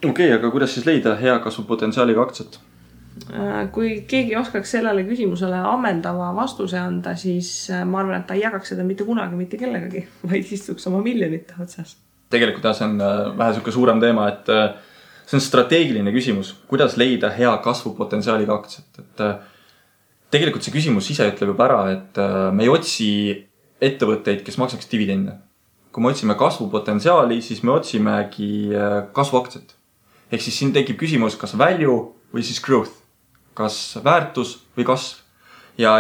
Speaker 3: Aga kuidas siis leida hea kasvupotentsiaaliga aktsiat?
Speaker 2: Kui keegi oskaks sellele küsimusele ammendava vastuse anda, siis ma arvan, et ta ei jagaks seda mitte kunagi mitte kellegagi, vaid istuks oma miljonite otsas.
Speaker 3: Tegelikult see on vähe selline suurem teema, et see on strateegiline küsimus, kuidas leida hea kasvupotentsiaaliga aktsiat. Et tegelikult see küsimus ise ütleb juba ära, et me ei otsi ettevõtteid, kes maksaks dividende. Kui me otsime kasvupotentsiaali, siis me otsimegi kasvuaktsiat. Ehk siis siin tekib küsimus, kas value või siis growth. Kas väärtus või kasv. Ja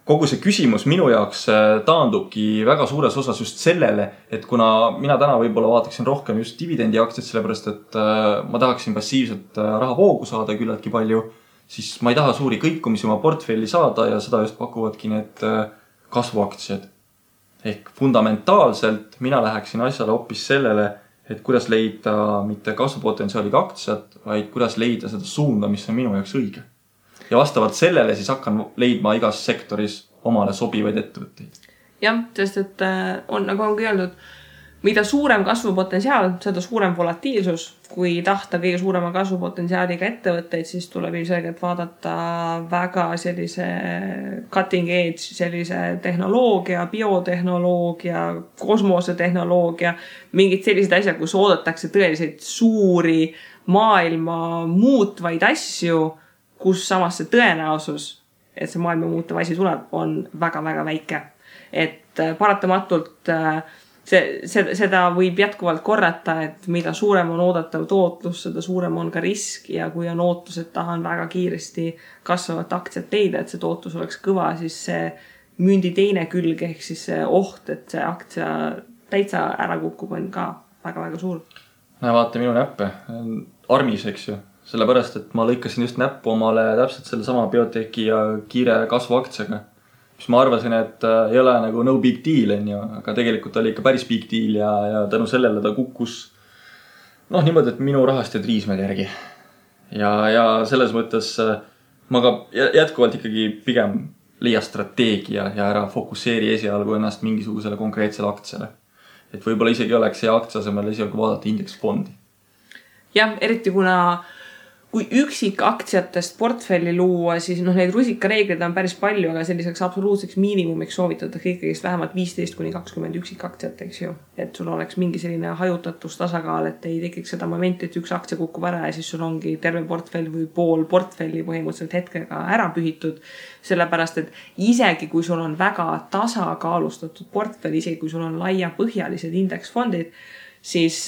Speaker 3: kogu see küsimus minu jaoks taandubki väga suures osas just sellele, et kuna mina täna võib-olla vaataksin rohkem just dividendi aktsiat, sellepärast et ma tahaksin passiivselt rahavoogu saada küllaltki palju, siis ma ei taha suuri kõikumisi oma portfelli saada ja seda just pakuvadki need kasvuaktsiad. Ehk fundamentaalselt mina läheksin asjale hoopis sellele, et kuidas leida mitte kasvupotentsiaaliga aktsiat, vaid kuidas leida seda suunda, mis on minu jaoks õige. Ja vastavalt sellele siis hakkan leidma igas sektoris omale sobivaid ettevõtteid.
Speaker 2: Jah, sest et on, nagu ongi öeldud, mida suurem kasvupotentsiaal, seda suurem volatiilsus. Kui tahta kõige suurema kasvupotentsiaaliga ettevõtteid, siis tuleb ilmselgelt vaadata väga sellise cutting edge, sellise tehnoloogia, biotehnoloogia, kosmosetehnoloogia, mingid sellised asjad, kus oodatakse tõeliselt suuri maailma muutvaid asju, kus samas see tõenäosus, et see maailma muutuv asi tuleb, on väga-väga väike. Et paratamatult seda võib jätkuvalt korrata, et mida suurem on oodatav tootlus, seda suurem on ka risk ja kui on ootus, et tahan väga kiiresti kasvavat aktsiat leida, et see tootlus oleks kõva, siis see mündi teine külg ehk siis see oht, et see aktsia täitsa ära kukub, on ka väga-väga suur.
Speaker 3: Näe, vaata minu näppe. Armis, eks ju. Sellepärast, et ma lõikasin just näppu omale täpselt selle sama bioteki ja kiire kasvuaktsiaga. Mis ma arvasin, et ei ole nagu no big deal, aga tegelikult oli ikka päris big deal ja tänu sellele ta kukkus niimoodi, et minu rahast ja triismed järgi. Ja selles mõttes ma ka jätkuvalt ikkagi pigem leia strateegia ja ära fokusseeri esialgu ennast mingisugusele konkreetsele aktsiale. Et võib-olla isegi oleks see aktsia asemel esialgu vaadata indeksfondi.
Speaker 2: Jah, eriti kui üksik aktsiatest portfelli luua, siis neid rusikareegleid on päris palju, aga selliseks absoluutseks miinimumiks soovitatakse ikkagi vähemalt 15-20 üksik aktsiat, eks ju. Et sul oleks mingi selline hajutatus tasakaal, et ei tekiks seda momenti, et üks aktsia kukub ära ja siis sul ongi terve portfell või pool portfelli põhimõtteliselt hetkega ära pühitud. Sellepärast, et isegi kui sul on väga tasakaalustatud portfell, isegi kui sul on laiapõhjalised indeksfondid, siis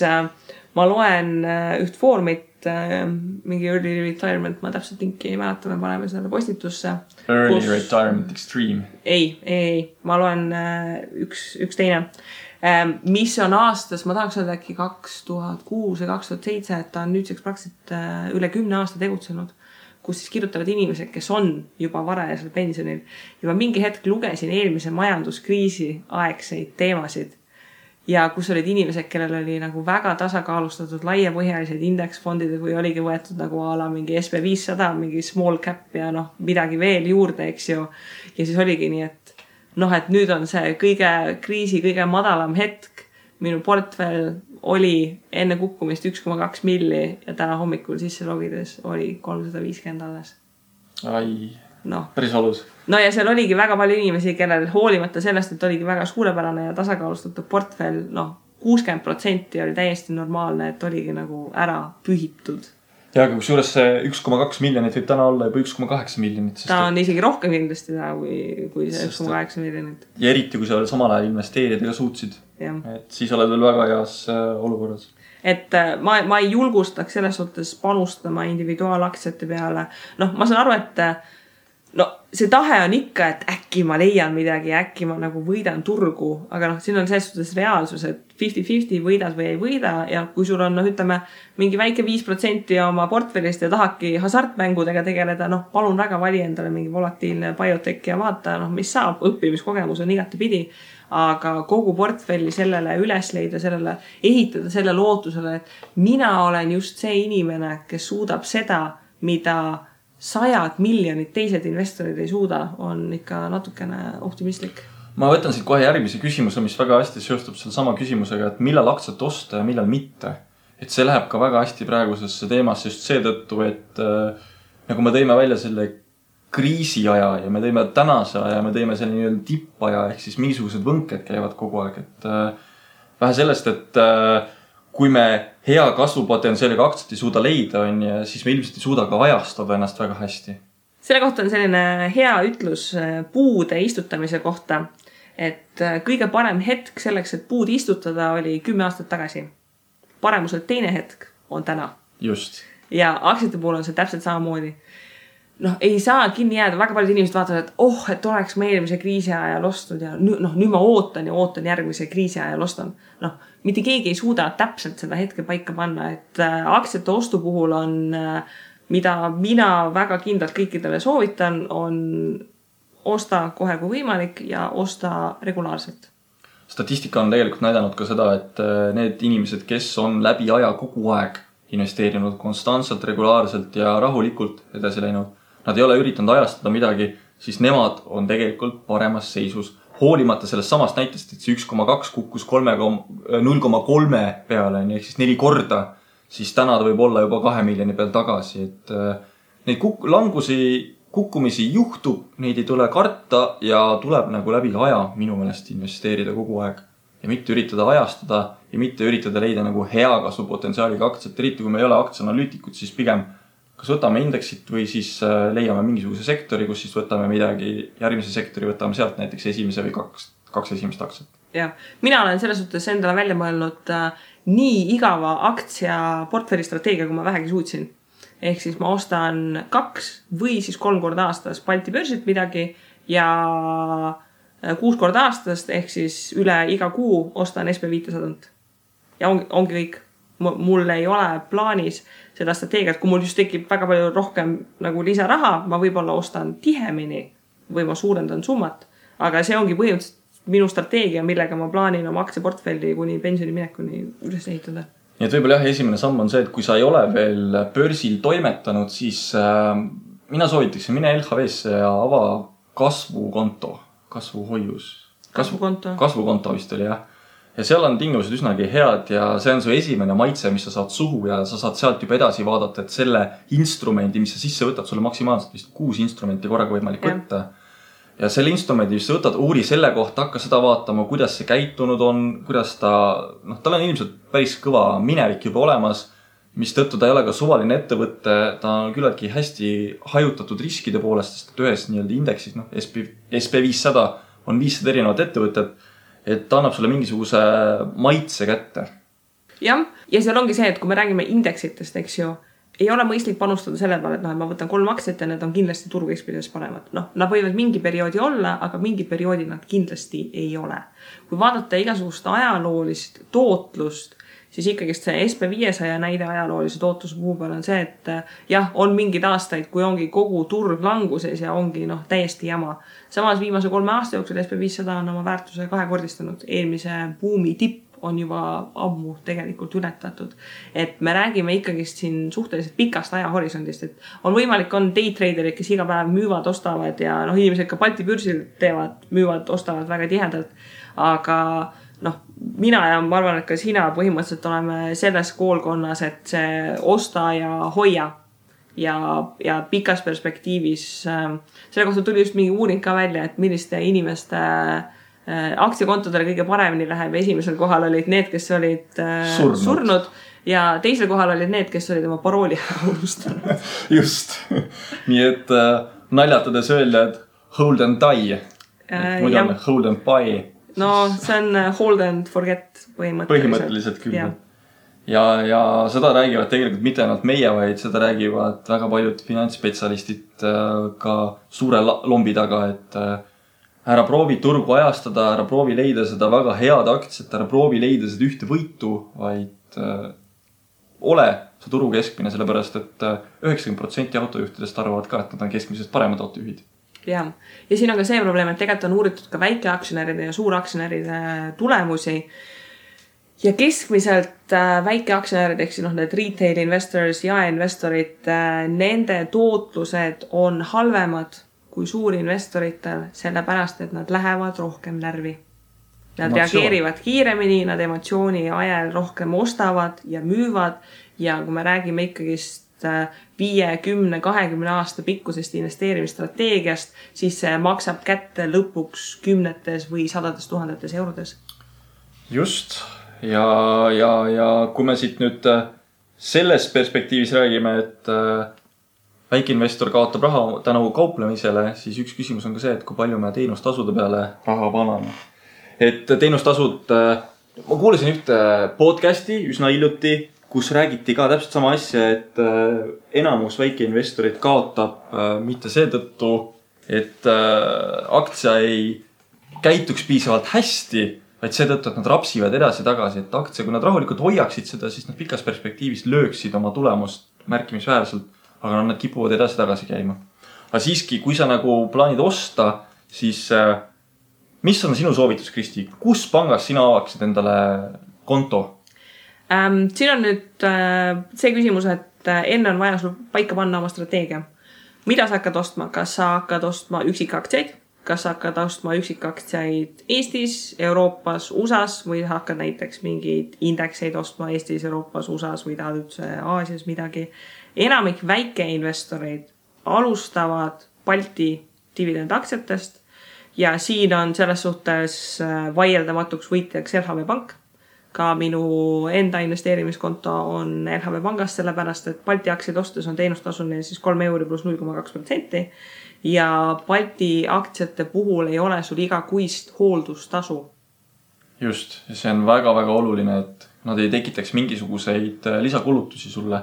Speaker 2: ma loen üht foorumit, mingi early retirement, ma täpselt linki ei mäleta, me paneme selle postitusse.
Speaker 3: Early retirement extreme.
Speaker 2: Ei, ma loen üks teine, mis on aastas, ma tahaks öelda äkki 2006 ja 2007, et ta on nüüdseks praktiliselt üle 10 aasta tegutsenud, kus siis kirjutavad inimesed, kes on juba varajasel pensionil. Juba mingi hetk lugesin eelmise majanduskriisi aegseid teemasid. Ja kus olid inimesed, kellel oli nagu väga tasakaalustatud laiapõhjalised indeksfondid või oligi võetud nagu ala mingi SP500, mingi small cap ja midagi veel juurde, eks ju. Ja siis oligi nii, et nüüd on see kriisi kõige madalam hetk. Minu portfell oli enne kukkumist 1,2 milli ja täna hommikul sisse logides oli 350 alles.
Speaker 3: Ai, päris valus.
Speaker 2: Ja seal oligi väga palju inimesi, kellel hoolimata sellest, et oligi väga suurepärane ja tasakaalustatud portfell, 60% oli täiesti normaalne, et oligi nagu ära pühitud.
Speaker 3: Ja aga kusjuures see 1,2 miljonit võib täna olla juba 1,8 miljonit.
Speaker 2: Ta on isegi rohkem kindlasti täna kui see 1,8 miljonit.
Speaker 3: Ja eriti, kui sa veel samal ajal investeerida ka suutsid. Et siis oled veel väga heas olukorras.
Speaker 2: Et ma ei julgustaks selles suhtes panustama individuaalaktsiate peale. Ma saan aru, et see tahe on ikka, et äkki ma leian midagi, äkki ma nagu võidan turgu, aga siin on selles suhtes reaalsus, et 50-50 võidad või ei võida ja kui sul on, ütleme, mingi väike 5% oma portfellist ja tahadki hasartmängudega tegeleda, palun väga vali endale mingi volatiilne biotech ja vaata, mis saab, õppimiskogemus on igati pidi, aga kogu portfelli sellele üles leida, sellele ehitada selle lootusele, et mina olen just see inimene, kes suudab seda, mida 100 miljonit teised investorid ei suuda, on ikka natukene optimistlik.
Speaker 3: Ma võtan siit kohe järgmise küsimuse, mis väga hästi seostub selle sama küsimusega, et millal aktsiat osta ja millal mitte. Et see läheb ka väga hästi praegusesse teemasse just seetõttu, et nagu me tõime välja selle kriisiaja ja me tõime tänase aja, me tõime selle nii-öelda tippaja, ehk siis mingisugused võnked käivad kogu aeg. Et vähe sellest, et kui me hea kasvupotentsiaaliga aktsiat ei suuda leida, siis me ilmselt ei suuda ka ajastada ennast väga hästi.
Speaker 2: Selle kohta on selline hea ütlus puude istutamise kohta, et kõige parem hetk selleks, et puud istutada oli 10 aastat tagasi. Paremuselt teine hetk on täna.
Speaker 3: Just.
Speaker 2: Ja aktsiate puhul on see täpselt samamoodi. Ei saa kinni jääda, väga paljud inimesed vaatavad, et oleks ma eelmise kriisi ajal ostnud ja nüüd ma ootan järgmise kriisi ajal ostan. Mitte keegi ei suuda täpselt seda hetke paika panna, et aktsiate ostu puhul on, mida mina väga kindlalt kõikidele soovitan, on osta kohe kui võimalik ja osta regulaarselt.
Speaker 3: Statistika on tegelikult näidanud ka seda, et need inimesed, kes on läbi aja kogu aeg investeerinud konstantselt, regulaarselt ja rahulikult edasi läinud, nad ei ole üritanud ajastada midagi, siis nemad on tegelikult paremas seisus hoolimata sellest samast näitest, et see 1,2 kukkus 0,3 peale, ehk siis 4 korda, siis täna ta võib olla juba 2 miljoni peal tagasi, et neid kukkumisi juhtub, neid ei tule karta ja tuleb nagu läbi aja minu meelest investeerida kogu aeg ja mitte üritada ajastada ja mitte üritada leida nagu hea kasvupotentsiaaliga aktsiat, eriti kui me ei ole aktsianalüütikud, siis pigem kas võtame indeksit või siis leiame mingisuguse sektori, kus siis võtame midagi, järgmise sektori võtame sealt näiteks esimese või kaks esimest aktsiat.
Speaker 2: Jah, mina olen selles suhtes endale välja mõelnud nii igava aktsia portfelli strateegia, kui ma vähegi suutsin. Ehk siis ma ostan 2 või siis 3 korda aastas Balti börsilt midagi ja 6 korda aastast, ehk siis üle iga kuu ostan SB500. Ja ongi kõik. Mul ei ole plaanis seda strateegiat, kui mul just tekib väga palju rohkem nagu lisaraha, ma võib-olla ostan tihemini või ma suurendan summat. Aga see ongi põhimõtteliselt minu strateegia, millega ma plaanin oma aktsiaportfelli kuni pensioni minekuni üles ehitada.
Speaker 3: Nii et võib-olla jah, esimene samm on see, et kui sa ei ole veel börsil toimetanud, siis mina soovitaksin mine LHV-sse ja ava kasvukonto, kasvuhoius. Kasvukonto vist oli, jah. Ja seal on tingimused üsnagi head ja see on su esimene maitse, mis sa saad suhu ja sa saad sealt juba edasi vaadata, et selle instrumendi, mis sa sisse võtad, sulle maksimaalselt vist 6 instrumenti korraga võimalik võtta. Ja selle instrumendi, mis sa võtad, uuri selle kohta, hakka seda vaatama, kuidas see käitunud on, kuidas tal on ilmselt päris kõva minevik juba olemas, mis tõttu ta ei ole ka suvaline ettevõtte, ta on küllaltki hästi hajutatud riskide poolest, sest ühes nii-öelda indeksis, SP500 on 500 erinevat ettevõtet, et ta annab sulle mingisuguse maitse kätte.
Speaker 2: Jah, ja seal ongi see, et kui me räägime indeksitest, eks ju, ei ole mõistlik panustada selle peale, et ma võtan 3 aktsiat ja need on kindlasti turukeskpides paremad. Nad võivad mingi perioodi olla, aga mingi perioodi nad kindlasti ei ole. Kui vaadata igasugust ajaloolist tootlust, siis ikkagi see SP500 näide ajaloolise tootluse puhul peal on see, et jah, on mingid aastaid, kui ongi kogu turg languses ja ongi täiesti jama. Samas viimase 3 aasta jooksul SP500 on oma väärtuse 2-kordistanud. Eelmise buumi tipp on juba ammu tegelikult ületatud. Et me räägime ikkagist siin suhteliselt pikast ajahorisondist, et on võimalik on daytraderid, kes iga päev müüvad, ostavad ja inimesed ka Balti börsil teevad, müüvad, ostavad väga tihedalt. Aga mina ja ma arvan, et ka sina põhimõtteliselt oleme selles koolkonnas, et see osta ja hoia ja pikas perspektiivis. Selle kohta tuli just mingi uuring ka välja, et milliste inimeste aktsiakontodele kõige paremini läheb. Esimesel kohal olid need, kes olid surnud ja teisel kohal olid need, kes olid oma parooli unustanud.
Speaker 3: Just. Nii et naljatades öelda, et hold and die. Muidu on hold and buy.
Speaker 2: No see on hold and forget
Speaker 3: põhimõtteliselt küll. Ja seda räägivad tegelikult mitte ainult meie, vaid seda räägivad väga paljud finantsspetsialistid ka suure lombi taga, et ära proovi turgu ajastada, ära proovi leida seda väga head aktsiat, ära proovi leida seda ühte võitu, vaid ole see turu keskmine, sellepärast et 90% autojuhtidest arvavad ka, et nad on keskmisest paremad autojuhid.
Speaker 2: Ja siin on ka see probleem, et tegelikult on uuritud ka väikeaktsionäride ja suuraktsionäride tulemusi ja keskmiselt väikeaktsionärid, ehk siis need retail investors ja investorid, nende tootlused on halvemad kui suurinvestoritel, sellepärast, et nad lähevad rohkem närvi. Nad reageerivad kiiremini, nad emotsiooni ajal rohkem ostavad ja müüvad ja kui me räägime ikkagist 5, 10, 20 aasta pikkusest investeerimisstrateegiast, siis see maksab kätte lõpuks 10 või 100 000 eurodes.
Speaker 3: Just. Ja kui me siit nüüd selles perspektiivis räägime, et väikeinvestor kaotab raha tänu kauplemisele, siis üks küsimus on ka see, et kui palju me teenustasude peale raha paname. Et teenustasud, ma kuulasin ühte podcasti üsna hiljuti, kus räägiti ka täpselt sama asja, et enamus väikeinvestorid kaotab mitte seetõttu, et aktsia ei käituks piisavalt hästi, vaid seetõttu, et nad rapsivad edasi tagasi, et aktsia, kui nad rahulikult hoiaksid seda, siis nad pikas perspektiivis lööksid oma tulemust märkimisväärselt, aga nad kipuvad edasi tagasi käima. Aga siiski, kui sa nagu plaanid osta, siis mis on sinu soovitus, Kristi? Kus pangas sina avaksid endale konto?
Speaker 2: Siin on nüüd see küsimus, et enne on vaja sul paika panna oma strateegia. Mida sa hakkad ostma? Kas sa hakkad ostma üksikaktsiaid? kas sa hakkad ostma üksikaktsiaid Eestis, Euroopas, USAs või hakkad näiteks mingeid indekseid ostma Eestis, Euroopas, USAs või tahad üldse Aasias midagi. Enamik väikeinvestoreid alustavad Balti dividendaktsiatest ja siin on selles suhtes vaieldamatuks võitjaks LHV Pank. Ka minu enda investeerimiskonto on LHV Pangast, sellepärast, et Balti aktsiaid ostes on teenustasuline siis 3 euri pluss 0,2% ja Balti aktsiate puhul ei ole sul igakuist hooldustasu.
Speaker 3: Just, ja see on väga-väga oluline, et nad ei tekitaks mingisuguseid lisakulutusi sulle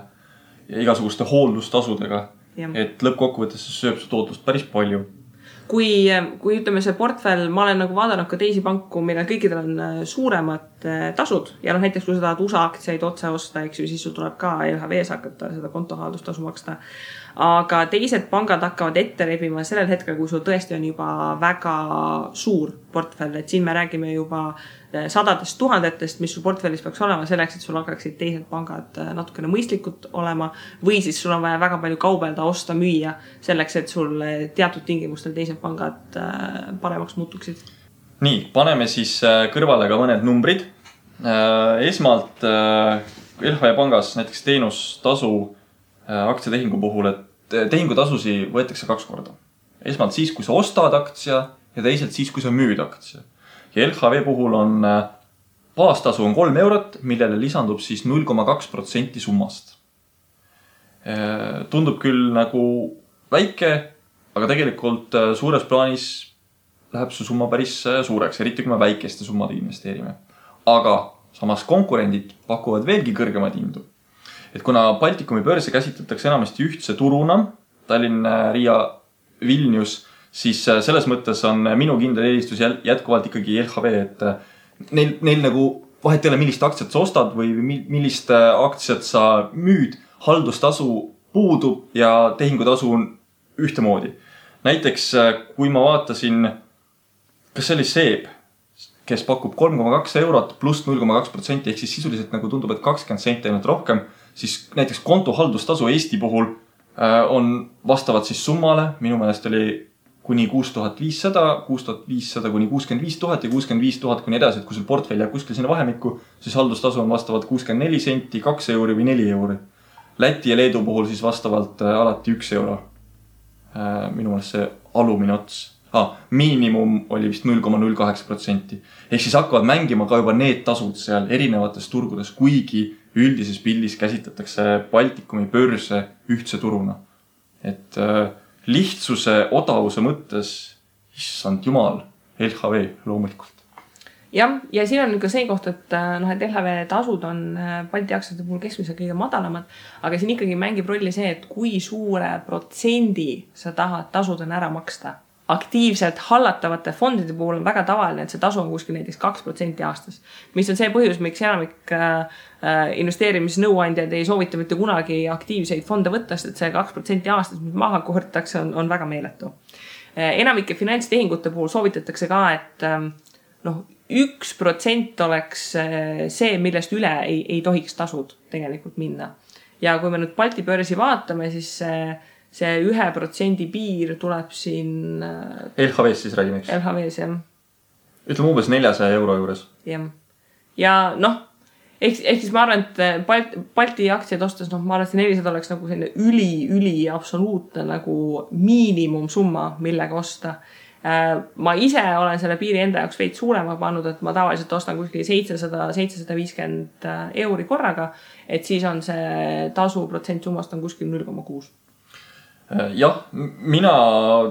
Speaker 3: ja igasuguste hooldustasudega, et lõppkokkuvõttes see sööb su tootlust päris palju.
Speaker 2: Kui ütleme see portfell, ma olen nagu vaadanud ka teisi panku, millel kõikidel on suuremad tasud ja näiteks kui sa tahad USA aktsiaid otse osta, eks ju, siis sul tuleb ka LHV-s hakata seda kontohaldustasu maksta. Aga teised pangad hakkavad ette rebima sellel hetkel, kui sul tõesti on juba väga suur portfell, et siin me räägime juba sadadest tuhandetest, mis sul portfellis peaks olema selleks, et sul hakkaksid teised pangad natukene mõistlikud olema või siis sul on vaja väga palju kaubelda, osta, müüa selleks, et sul teatud tingimustel teised pangad paremaks muutuksid. Nii,
Speaker 3: paneme siis kõrvale ka mõned numbrid. Esmalt LHV Pangas näiteks teenustasu aktsiatehingu puhul, et tehingutasusi võetakse 2 korda. Esmalt siis, kui sa ostad aktsia ja teisalt siis, kui sa müüd aktsia. Ja LHV puhul on baastasu on 3 eurot, millele lisandub siis 0,2% summast. Tundub küll nagu väike, aga tegelikult suures plaanis läheb su summa päris suureks, eriti kui me väikeste summade investeerime. Aga samas konkurendid pakuvad veelgi kõrgemad hindu. Et kuna Baltikumi börse käsitletakse enamasti ühtse turuna, Tallinn, Riia, Vilnius, siis selles mõttes on minu kindel eelistus jätkuvalt ikkagi LHV, et neil nagu vahet ei ole, millist aktsiat sa ostad või millist aktsiat sa müüd, haldustasu puudub ja tehingutasu on ühtemoodi. Näiteks, kui ma vaatasin, kas see oli SEB, kes pakub 3,2 eurot pluss 0,2%, ehk siis sisuliselt nagu tundub, et 20 senti ainult rohkem, siis näiteks kontohaldustasu Eesti puhul on vastavad siis summale, minu meelest oli kuni 6500, 6500 kuni 65 000 ja 65 000 kuni edasi, et kui sul portfell jääb kuskil sinna vahemikku, siis haldustasu on vastavalt 64 senti, 2 euri või 4 euri. Läti ja Leedu puhul siis vastavalt alati 1 euro. Minu meelest see alumine ots. Miinimum oli vist 0,08%. Ehk siis hakkavad mängima ka juba need tasud seal erinevates turgudes, kuigi üldises pildis käsitletakse Baltikumi börse ühtse turuna. Et lihtsuse, odavuse mõttes, issand jumal, LHV loomulikult.
Speaker 2: Jah, ja siin on ka see koht, et LHV tasud on Balti aktsiate puhul keskmiselt kõige madalamad, aga siin ikkagi mängib rolli see, et kui suure protsendi sa tahad tasudena ära maksta. Aktiivselt hallatavate fondide puhul on väga tavaline, et see tasu on kuskil näiteks 2% aastas, mis on see põhjus, miks enamik investeerimisnõuandjad ei soovita mitte kunagi aktiivseid fonde võtta, sest et see 2% aastas, mis maha kohortakse, on väga meeletu. Enamike finantstehingute puhul soovitatakse ka, et 1% oleks see, millest üle ei tohiks tasud tegelikult minna. Ja kui me nüüd Balti börsi vaatame, siis see 1% piir tuleb siin
Speaker 3: LHV-s siis räägime, eks?
Speaker 2: LHV-s, jah.
Speaker 3: Ütleme umbes 400 euro juures.
Speaker 2: Jah. Ja ehk siis ma arvan, et Balti aktsiaid ostes, ma arvan, et 400 oleks nagu selline üli absoluutne nagu miinimumsumma, millega osta. Ma ise olen selle piiri enda jaoks veid suurema pannud, et ma tavaliselt ostan kuskil 700-750 euri korraga, et siis on see tasu protsent summast on kuskil 0,6.
Speaker 3: Jah, mina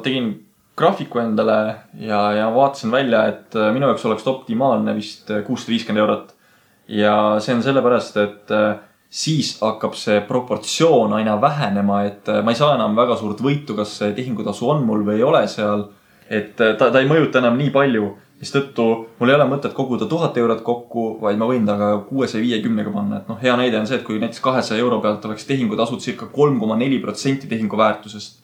Speaker 3: tegin graafiku endale ja vaatasin välja, et minu jaoks oleks optimaalne vist 650 eurot. Ja see on sellepärast, et siis hakkab see proportsioon aina vähenema, et ma ei saa enam väga suurt võitu, kas see tehingutasu on mul või ei ole seal. Et ta ei mõjuta enam nii palju, mistõttu mul ei ole mõtet koguda 1000 eurot kokku, vaid ma võin taga 650 panna. Et hea näide on see, et kui näiteks 200 euro pealt oleks tehingutasud circa 3,4% tehingu väärtusest,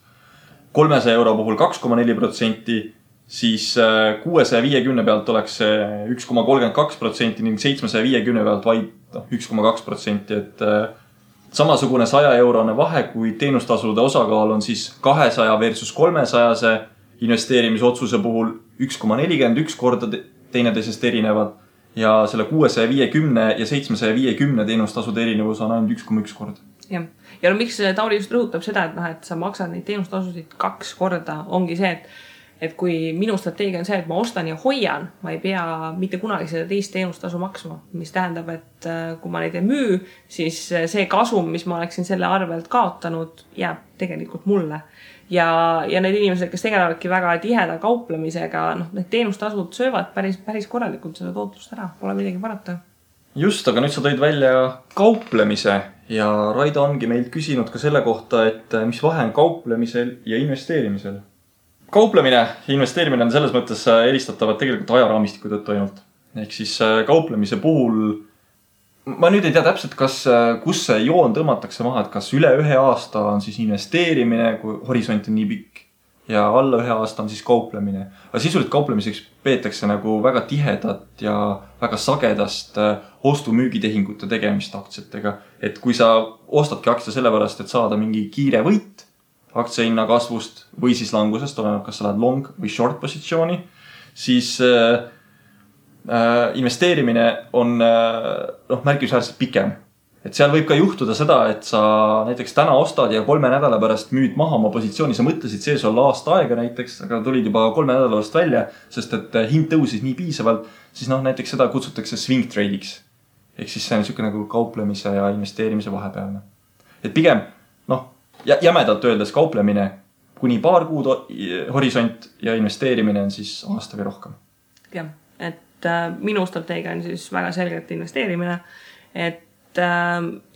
Speaker 3: 300 euro puhul 2,4%, siis 650 pealt oleks 1,32% ning 750 pealt vaid 1,2%. Et samasugune 100 eurone vahe, kui teenustasude osakaal on siis 200 versus 300, investeerimisotsuse puhul 1,41 korda teineteisest erinevad ja selle 650 ja 750 teenustasude erinevus on ainult 1,1 korda.
Speaker 2: Jah. Ja no miks Tauri just rõhutab seda, et sa maksad neid teenustasusid 2 korda, ongi see, et kui minu strateegia on see, et ma ostan ja hoian, ma ei pea mitte kunagi seda teist teenustasu maksma, mis tähendab, et kui ma neid ei müü, siis see kasum, mis ma oleksin selle arvelt kaotanud, jääb tegelikult mulle. Ja need inimesed, kes tegelevadki väga tiheda kauplemisega, need teenustasud söövad päris korralikult seda tootlust ära, pole midagi parata.
Speaker 3: Just, aga nüüd sa tõid välja kauplemise ja Raido ongi meilt küsinud ka selle kohta, et mis vahe on kauplemisel ja investeerimisel. Kauplemine ja investeerimine on selles mõttes eristatavad tegelikult ajaraamistiku tõttu ainult. Ehk siis kauplemise puhul, ma nüüd ei tea täpselt, kus see joon tõmmatakse maha, et kas üle 1 aasta on siis investeerimine, kui horisont on nii pikk ja alla 1 aasta on siis kauplemine. Aga sisuliselt kauplemiseks peetakse nagu väga tihedat ja väga sagedast ostu-müügitehingute tegemist aktsiatega. Et kui sa ostadki aktsia sellepärast, et saada mingi kiire võit aktsiahinna kasvust või siis langusest, oleneb, kas sa lähed long või short positsiooni, siis investeerimine on märkimisväärselt pikem. Et seal võib ka juhtuda seda, et sa näiteks täna ostad ja 3 nädala pärast müüd maha oma positsiooni, sa mõtlesid sees olla aasta aega näiteks, aga tulid juba 3 nädala pärast välja, sest et hind tõusis nii piisavalt, siis näiteks seda kutsutakse swing trade'iks. Ehk siis see on niisugune nagu kauplemise ja investeerimise vahepealne. Et pigem, jämedalt öeldes kauplemine kuni paar kuud horisont ja investeerimine on siis aasta või rohkem.
Speaker 2: Jah, et minu strateegia on siis väga selgelt investeerimine, et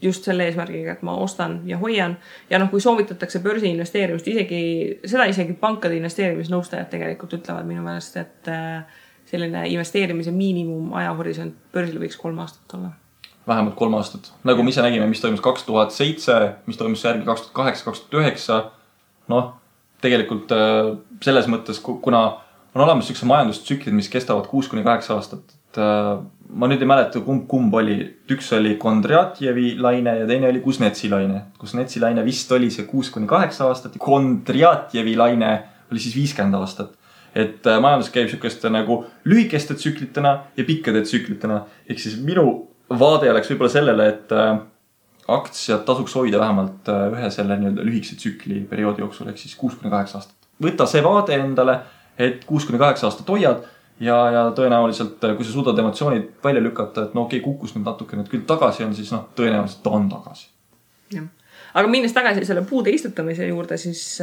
Speaker 2: just selle eesmärgiga, et ma ostan ja hoian. Ja kui soovitatakse börsi investeerimist, isegi pankade investeerimisnõustajad tegelikult ütlevad minu meelest, et selline investeerimise miinimum ajahorisont börsil võiks 3 aastat olla.
Speaker 3: Vähemalt 3 aastat. Nagu me ise nägime, mis toimus 2007, mis toimus järgi 2008-2009. Tegelikult selles mõttes, kuna on olemas sellised majandustsüklid, mis kestavad 6-8 aastat. Ma nüüd ei mäleta, kumb oli. Üks oli Kondratjevi laine ja teine oli Kuznetsi laine. Kuznetsi laine vist oli see 6-8 aastat ja Kondratjevi laine oli siis 50 aastat. Et majandus käib sellised nagu lühikeste tsüklitena ja pikkade tsüklitena. Ehk siis minu vaade oleks võib-olla sellele, et aktsiad tasuks hoida vähemalt ühe selle lühikese tsükli perioodi jooksul, ehk siis 6-8 aastat. Võta see vaade endale, et 6-8 aastat hoiad ja tõenäoliselt, kui sa suudad emotsioonid välja lükata, et kukkus nüüd natuke nüüd küll tagasi on, siis tõenäoliselt ta on tagasi.
Speaker 2: Ja. Aga minnes tagasi selle puude istutamise juurde, siis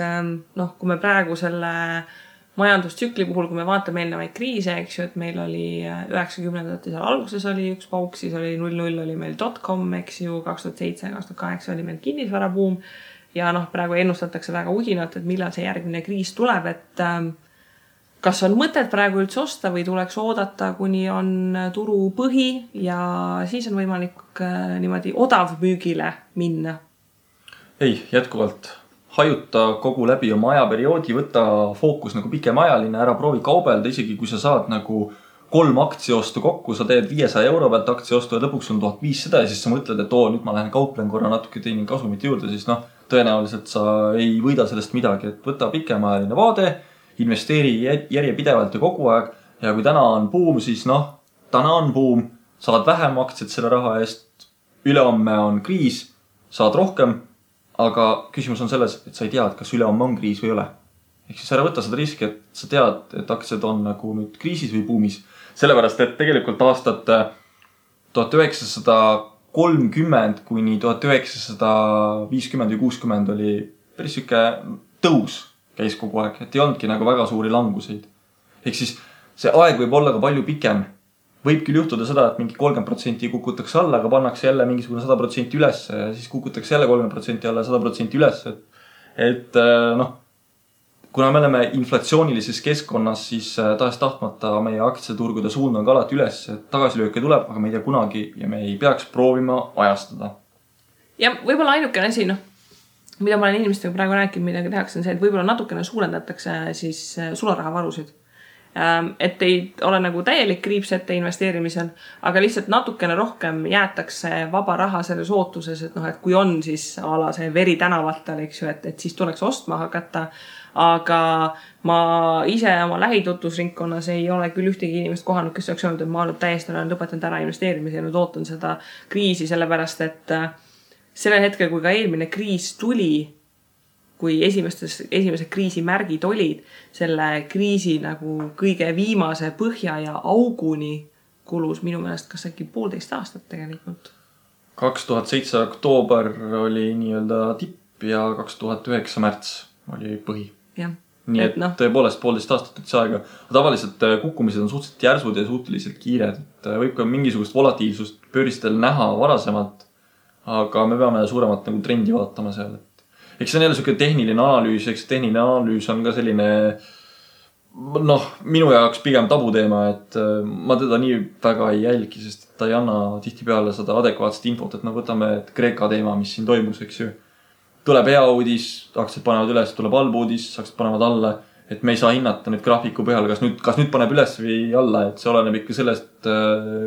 Speaker 2: kui me praegu selle majandustsükli puhul, kui me vaatame eelnevaid kriise, eks ju, et meil oli 90-ndate seal alguses oli üks pauk, siis oli 00 oli meil .com, eks ju, 2007-2008 oli meil kinnisvarabuum ja praegu ennustatakse väga uhinat, et millal see järgmine kriis tuleb, et kas on mõtet praegu üldse osta või tuleks oodata, kuni on turu põhi ja siis on võimalik niimoodi odavmüügile minna?
Speaker 3: Ei, jätkuvalt. Hajuta kogu läbi oma ajaperioodi, võtta fookus pikemajaline, ära proovi kaubelda, isegi kui sa saad 3 aktsiaostu kokku, sa teed 500 euro pealt aktsiaostu ja lõpuks on 1500 ja siis sa mõtled, et nüüd ma lähen kauplen korra natuke teenin kasumit juurde, siis tõenäoliselt sa ei võida sellest midagi, et võta pikemajaline vaade, investeeri järjepidevalt ja kogu aeg ja kui täna on buum, siis täna on buum, saad vähem aktsiat selle raha eest, ülehomme on kriis, saad rohkem. Aga küsimus on selles, et sa ei tea, kas ülehomme on kriis või ei ole. Ehk siis ära võtta seda riski, et sa tead, et aktsiad on nüüd kriisis või buumis. Sellepärast, et tegelikult aastat 1930 kuni 1950 või 60 oli päris siuke tõus käis kogu aeg, et ei olnudki väga suuri languseid. Ehk siis see aeg võib olla ka palju pikem. Võib küll juhtuda seda, et mingi 30% kukutakse alla, aga pannakse jälle mingisugune 100% üles ja siis kukutakse jälle 30% alla 100% üles. Et kuna me oleme inflatsioonilises keskkonnas, siis tahes tahtmata meie aktsiaturgude suund on ka alati üles, et tagasilööke tuleb, aga me ei tea kunagi ja me ei peaks proovima ajastada.
Speaker 2: Ja võib-olla ainukene asi, mida ma olen inimestega praegu rääkinud, mida tehakse, on see, et võib-olla natukene suurendatakse siis sularahavarusid. et ei ole nagu täielik kriips ette investeerimisel, aga lihtsalt natukene rohkem jäetakse vaba raha selles ootuses, et noh, et kui on siis ala see veri tänavatel, eks ju, et siis tuleks ostma hakata. Aga ma ise oma lähitutvusringkonnas ei ole küll ühtegi inimest kohanud, kes oleks öelnud, et ma olen täiesti lõpetanud ära investeerimise ja nüüd ootan seda kriisi, sellepärast et sellel hetkel, kui ka eelmine kriis tuli, kui esimesed kriisi märgid olid, selle kriisi nagu kõige viimase põhja ja auguni kulus minu meelest kas äkki 1,5 aastat tegelikult.
Speaker 3: 2007 oktoober oli nii-öelda tipp ja 2009 märts oli põhi.
Speaker 2: Ja.
Speaker 3: Nii et tõepoolest 1,5 aastat üldse aega. Tavaliselt kukkumised on suhteliselt järsud ja suhteliselt kiired. Et võib ka mingisugust volatiilsust börsistel näha varasemalt, aga me peame suuremat nagu trendi vaatama seal. Eks see on jälle selline tehniline analüüs, eks tehniline analüüs on ka selline minu jaoks pigem tabuteema, et ma teda nii väga ei jälgi, sest ta ei anna tihtipeale seda adekvaatset infot, et võtame Kreeka teema, mis siin toimus, eks ju. Tuleb hea uudis, aktsiad panevad üles, tuleb halb uudis, aktsiad panevad alla, et me ei saa hinnata nüüd graafiku põhjal, kas nüüd paneb üles või alla, et see oleneb ikka sellest,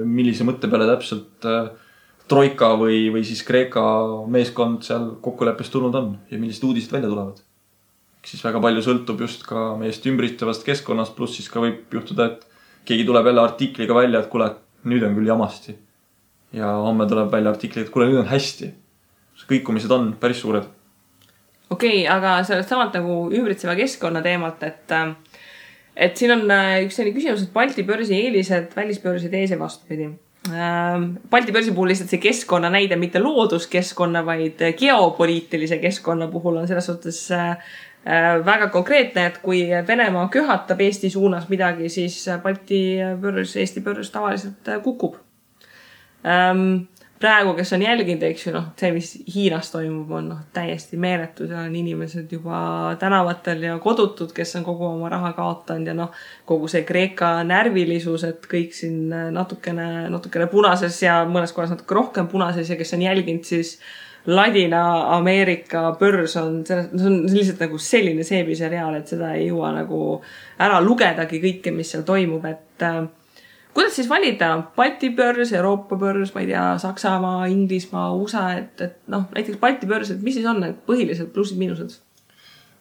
Speaker 3: millise mõtte peale täpselt Troika või siis Kreeka meeskond seal kokkuleppest tulnud on ja millised uudised välja tulevad. Siis väga palju sõltub just ka meist ümbristevast keskkonnast, pluss siis ka võib juhtuda, et keegi tuleb jälle artikliga välja, et kuule, nüüd on küll jamasti. Ja homme tuleb välja artikli, et kuule, nüüd on hästi. Kõikumised on päris suured.
Speaker 2: Okei, aga sellest samalt nagu ümbritseva keskkonna teemalt, et siin on üks selline küsimus, et Balti börsi eelised, välisbörsid ees ja vastupidi. Balti börsi puhul lihtsalt see keskkonna näide, mitte looduskeskkonna, vaid geopoliitilise keskkonna puhul on selles suhtes väga konkreetne, et kui Venemaa köhatab Eesti suunas midagi, siis Balti börs, Eesti börs tavaliselt kukub. Praegu, kes on jälginud, eks ju, see, mis Hiinas toimub, on täiesti meeletud ja on inimesed juba tänavatel ja kodutud, kes on kogu oma raha kaotanud ja kogu see Kreeka närvilisus, et kõik siin natukene punases ja mõnes kohas natuke rohkem punases ja kes on jälginud, siis Ladina-Ameerika börs on lihtsalt nagu selline seebiseriaal, et seda ei jõua nagu ära lugedagi kõike, mis seal toimub, et kuidas siis valida Balti börs, Euroopa börs, ma ei tea, Saksamaa, Inglismaa, USA, et näiteks Balti börs, et mis siis on need põhilised plussid, miinused?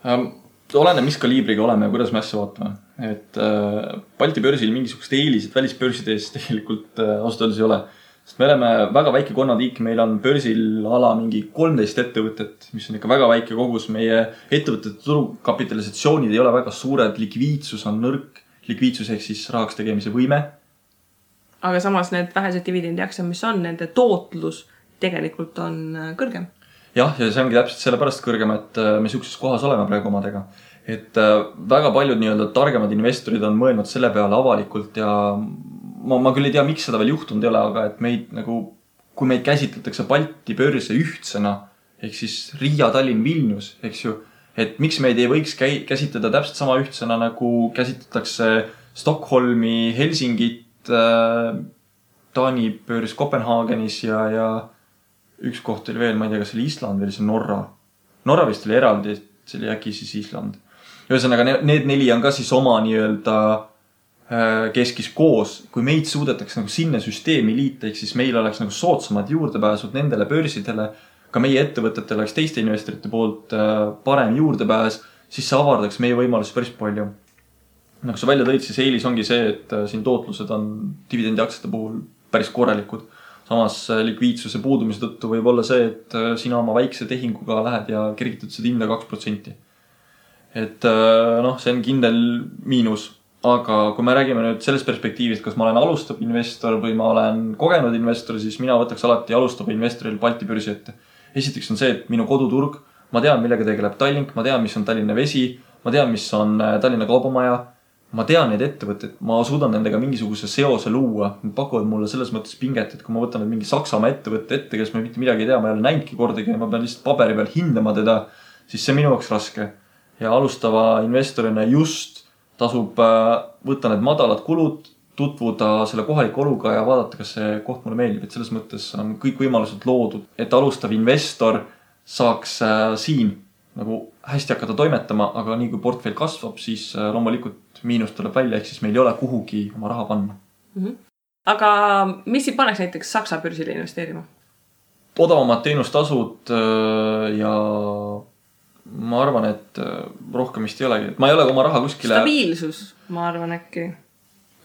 Speaker 3: Oleneb, mis kaliibriga oleme ja kuidas me asja vaatame. Et Balti börsil mingisugust eelised välisbörsides tegelikult ausalt öeldes ei ole. Sest me oleme väga väike konnatiik, meil on börsil ala mingi 13 ettevõtet, mis on ikka väga väike kogus. Meie ettevõtete turukapitalisatsioonid ei ole väga suured, likviidsus on nõrk, likviidsus ehk siis rahaks tegemise võime.
Speaker 2: Aga samas need vähesed dividendiaksed, mis on, nende tootlus tegelikult on kõrgem.
Speaker 3: Jah, ja see ongi täpselt sellepärast kõrgem, et me siukses kohas oleme praegu omadega. Et väga paljud nii-öelda targemad investorid on mõelnud selle peale avalikult ja ma küll ei tea, miks seda veel juhtunud ei ole, aga et meid nagu, kui meid käsitletakse Balti börse ühtsena, ehk siis Riia, Tallinn, Vilnius, eks ju, et miks meid ei võiks käsitleda täpselt sama ühtsena, nagu käsitletakse Stockholmi, Helsingit, Taani börs Kopenhaagenis ja üks koht oli veel, ma ei tea, kas oli Island või see Norra. Norra vist oli eraldi, see oli äkki siis Island. Ühesõnaga, need 4 on ka siis oma nii-öelda keskis koos. Kui meid suudetakse nagu sinna süsteemi liita, ehk siis meil oleks nagu soodsamad juurdepääsud nendele börsidele, ka meie ettevõtetele oleks teiste investorite poolt parem juurdepääs, siis see avardaks meie võimalusi päris palju. Nagu sa välja tõid, siis eelis ongi see, et siin tootlused on dividendiaksete puhul päris korralikud. Samas likviidsuse puudumise tõttu võib olla see, et sina oma väikse tehinguga lähed ja kergitad seda hinda 2%. Et see on kindel miinus. Aga kui me räägime nüüd sellest perspektiivist, kas ma olen alustav investor või ma olen kogenud investor, siis mina võtaks alati alustava investoril Balti börsi ette. Esiteks on see, et minu koduturg, ma tean, millega tegeleb Tallink, ma tean, mis on Tallinna Vesi, ma tean, mis on Tallinna Kaubamaja. Ma tean neid ettevõtteid, ma suudan nendega mingisuguse seose luua. Nad pakuvad mulle selles mõttes pinget, et kui ma võtan mingi Saksamaa ettevõtte ette, kes ma mitte midagi ei tea, ma ei ole näinudki kordagi ja ma pean lihtsalt paberi peal hindama teda, siis see minu jaoks raske. Ja alustava investorina just tasub võtta need madalad kulud, tutvuda selle kohaliku oluga ja vaadata, kas see koht mulle meeldib. Et selles mõttes on kõik võimalused loodud, et alustav investor saaks siin nagu hästi hakata toimetama, aga nii kui portfell kasvab, siis loomulikult miinus tuleb välja, ehk siis meil ei ole kuhugi oma raha panna.
Speaker 2: Aga mis siin paneks näiteks Saksa börsile investeerima?
Speaker 3: Odavamad teenustasud ja ma arvan, et rohkem vist ei olegi. Ma ei ole oma raha kuskile...
Speaker 2: Stabiilsus, ma arvan äkki.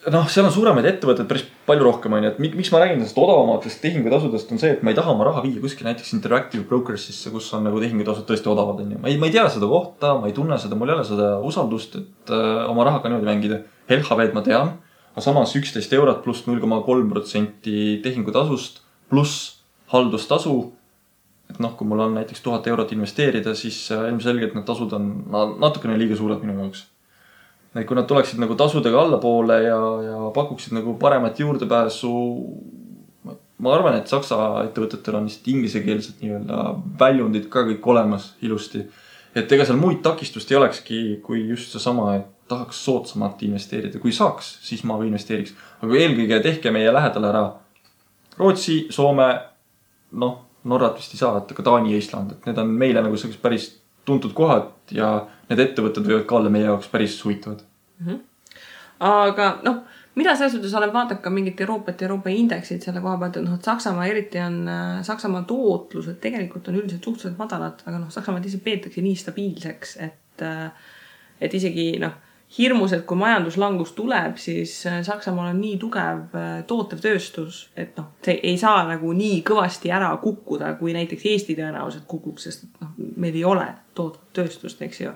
Speaker 3: Seal on suuremaid ettevõtted päris palju rohkem on. Miks ma räägin sellest odavamatest tehingutasudest on see, et ma ei taha oma raha viia kuskil näiteks Interactive Brokersisse, kus on nagu tehingutasud tõesti odavad. Ma ei tea seda kohta, ma ei tunne seda, mul ei ole seda usaldust, et oma rahaga niimoodi mängida. LHV-d ma tean, aga samas 11 eurot pluss 0,3% tehingutasust pluss haldustasu. Et kui mul on näiteks 1000 eurot investeerida, siis ilmselgelt need tasud on natukene liiga suured minu jaoks. Kui nad tuleksid nagu tasudega allapoole ja pakuksid nagu paremat juurdepääsu, ma arvan, et Saksa ettevõtetel on lihtsalt inglisekeelset nii-öelda väljundid ka kõik olemas ilusti. Et ega seal muid takistust ei olekski, kui just see sama, et tahaks soodsamalt investeerida. Kui saaks, siis ma investeeriks. Aga eelkõige tehke meie lähedal ära Rootsi, Soome, Norrat vist ei saa, et ka Taani ja Island. Et need on meile nagu sellised päris tuntud kohad ja need ettevõtted võivad ka olla meie jaoks päris huvitavad.
Speaker 2: Aga mida selles suhtes olen vaadanud ka mingit Euroopa indeksid selle koha pealt, et Saksamaa eriti on Saksamaa tootlused tegelikult on üldiselt suhteliselt madalad, aga Saksamaa ise peetakse nii stabiilseks, et isegi hirmus, et kui majanduslangus tuleb, siis Saksamaal on nii tugev tootev tööstus, et see ei saa nagu nii kõvasti ära kukkuda, kui näiteks Eesti tõenäoliselt kukuks, sest meil ei ole tootvat tööstust, eks ju.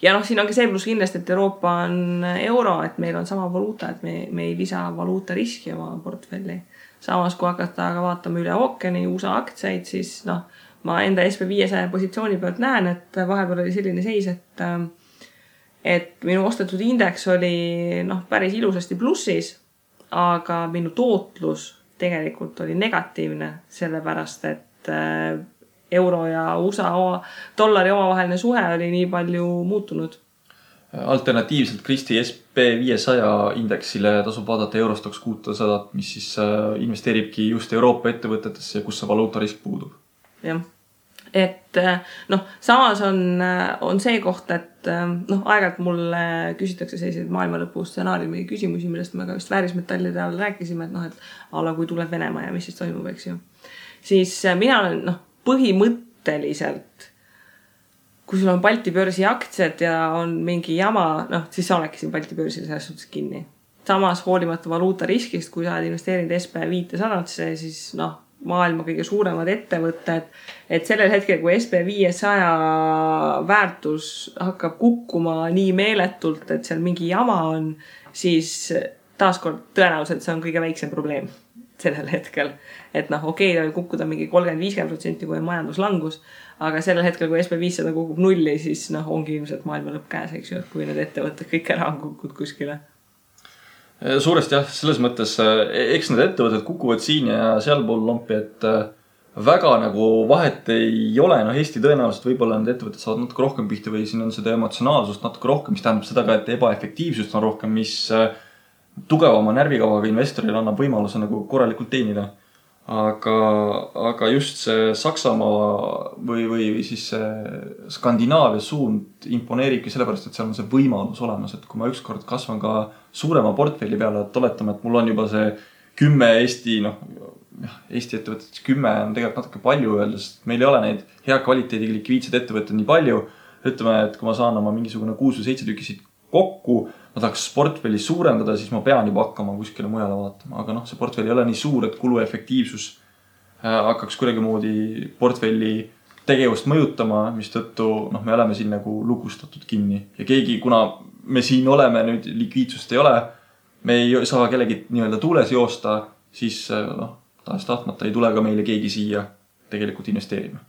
Speaker 2: Ja siin on ka see pluss kindlasti, et Euroopa on euro, et meil on sama valuuta, et me ei lisa valuuta riski oma portfelli. Samas, kui hakata aga vaatama üle ookeani USA aktsiaid, siis ma enda SP500 positsiooni pealt näen, et vahepeal oli selline seis, et minu ostetud indeks oli päris ilusasti plussis, aga minu tootlus tegelikult oli negatiivne, sellepärast, et euro ja USA dollari omavaheline suhe oli nii palju muutunud.
Speaker 3: Alternatiivselt Kristi SP500 indeksile tasub vaadata Eurostox 600, mis siis investeeribki just Euroopa ettevõtetesse, kus see valuutarisk puudub.
Speaker 2: Jah. Et samas on see koht, et aeg-ajalt mulle küsitakse selliseid maailmalõpu stsenaariumi küsimusi, millest me ka vist väärismetallide all rääkisime, et ala kui tuleb Venemaa ja mis siis toimub, eks ju. Siis mina olen põhimõtteliselt, kui sul on Balti börsi aktsiad ja on mingi jama, siis sa olekki siin Balti börsil selles suhtes kinni. Samas hoolimata valuuta riskist, kui sa oled investeerinud SP500-sse, siis maailma kõige suuremad ettevõtted, et sellel hetkel, kui SP500 väärtus hakkab kukkuma nii meeletult, et seal mingi jama on, siis taaskord tõenäoliselt see on kõige väiksem probleem sellel hetkel. Et okei, ta võib kukkuda mingi 30-50%, kui on majanduslangus, aga sellel hetkel, kui SP500 kukub nulli, siis ongi ilmselt maailma lõpp käes, eks ju, et kui need ettevõtted kõik ära on kukkud kuskile.
Speaker 3: Suuresti jah, selles mõttes, eks need ettevõtted kukuvad siin ja sealpool lompi, et väga nagu vahet ei ole. Eesti tõenäoliselt võib-olla need ettevõtted saavad natuke rohkem pihta või siin on seda emotsionaalsust natuke rohkem, mis tähendab seda ka, et ebaefektiivsust on rohkem, mis tugevama närvikavaga investoril annab võimaluse nagu korralikult teenida. Aga just see Saksamaa või siis see Skandinaavia suund imponeeribki sellepärast, et seal on see võimalus olemas, et kui ma ükskord kasvan ka suurema portfelli peale, et oletame, et mul on juba see 10 Eesti ettevõtted, 10 on tegelikult natuke palju öeldes, meil ei ole neid hea kvaliteediga likviidsed ettevõtted nii palju. Ütleme, et kui ma saan oma mingisugune 6 või 7 tükisid kokku, ma tahaks portfelli suurendada, siis ma pean juba hakkama kuskile mujale vaatama. Aga see portfelli ei ole nii suur, et kuluefektiivsus hakkaks kuidagi moodi portfelli tegevust mõjutama, mis tõttu me oleme siin nagu lugustatud kinni. Ja keegi, kuna me siin oleme, nüüd likviidsust ei ole, me ei saa kellegi nii-öelda tuules joosta, siis taas tahtmata ei tule ka meile keegi siia tegelikult investeerima.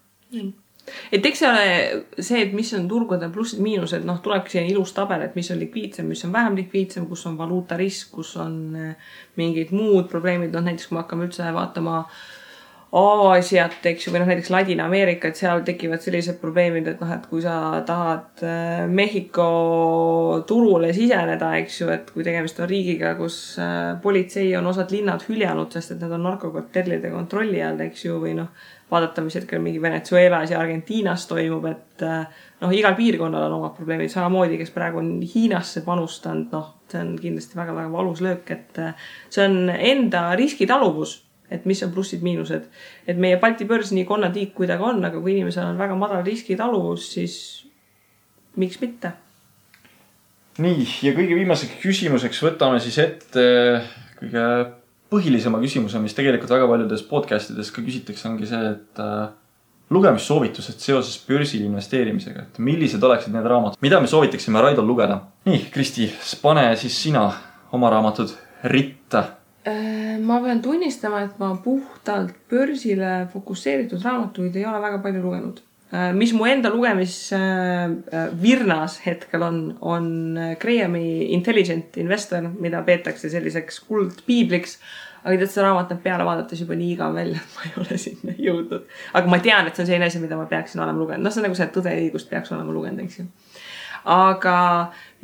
Speaker 2: Et eks see, et mis on turgude plussid miinused, tulebki siia ilus tabel, et mis on likviidsem, mis on vähem likviidsem, kus on valuuta risk, kus on mingid muud probleemid. Näiteks kui me hakkame üldse vaatama Aasiat, eks ju, või näiteks Ladina-Ameerika, et seal tekivad sellised probleemid, et kui sa tahad Mehhiko turule siseneda, eks ju, et kui tegemist on riigiga, kus politsei on osad linnad hüljanud, sest et need on narkokartellide kontrolli all, eks ju, või vaadata, mis hetkel mingi Venezuelas ja Argentiinas toimub, et igal piirkonnal on omad probleemid, samamoodi, kes praegu on Hiinasse panustanud, see on kindlasti väga-väga valus löök, et see on enda riskitaluvus, et mis on plussid-miinused. Et meie Balti börs nii konnatiik kui ta ka on, aga kui inimesel on väga madal riskitaluvus, siis miks mitte?
Speaker 3: Nii, ja kõige viimaseks küsimuseks võtame siis ette kõige põhilisema küsimuse, mis tegelikult väga paljudes podcastides ka küsitakse, ongi see, et lugemissoovitused seoses börsil investeerimisega, et millised oleksid need raamatud, mida me soovitaksime Raidol lugeda. Nii, Kristi, pane siis sina oma raamatud ritta.
Speaker 2: Ma pean tunnistama, et ma puhtalt börsile fokusseeritud raamatuid ei ole väga palju lugenud. Mis mu enda lugemisvirnas hetkel on Grahami Intelligent Investor, mida peetakse selliseks kuldpiibliks, aga tead, seda raamat peale vaadates juba nii igav välja, et ma ei ole sinna jõudnud. Aga ma tean, et see on selline asi, mida ma peaksin olema lugenud. See on nagu see tõde ja õigust peaks olema lugenud, eks ju. Aga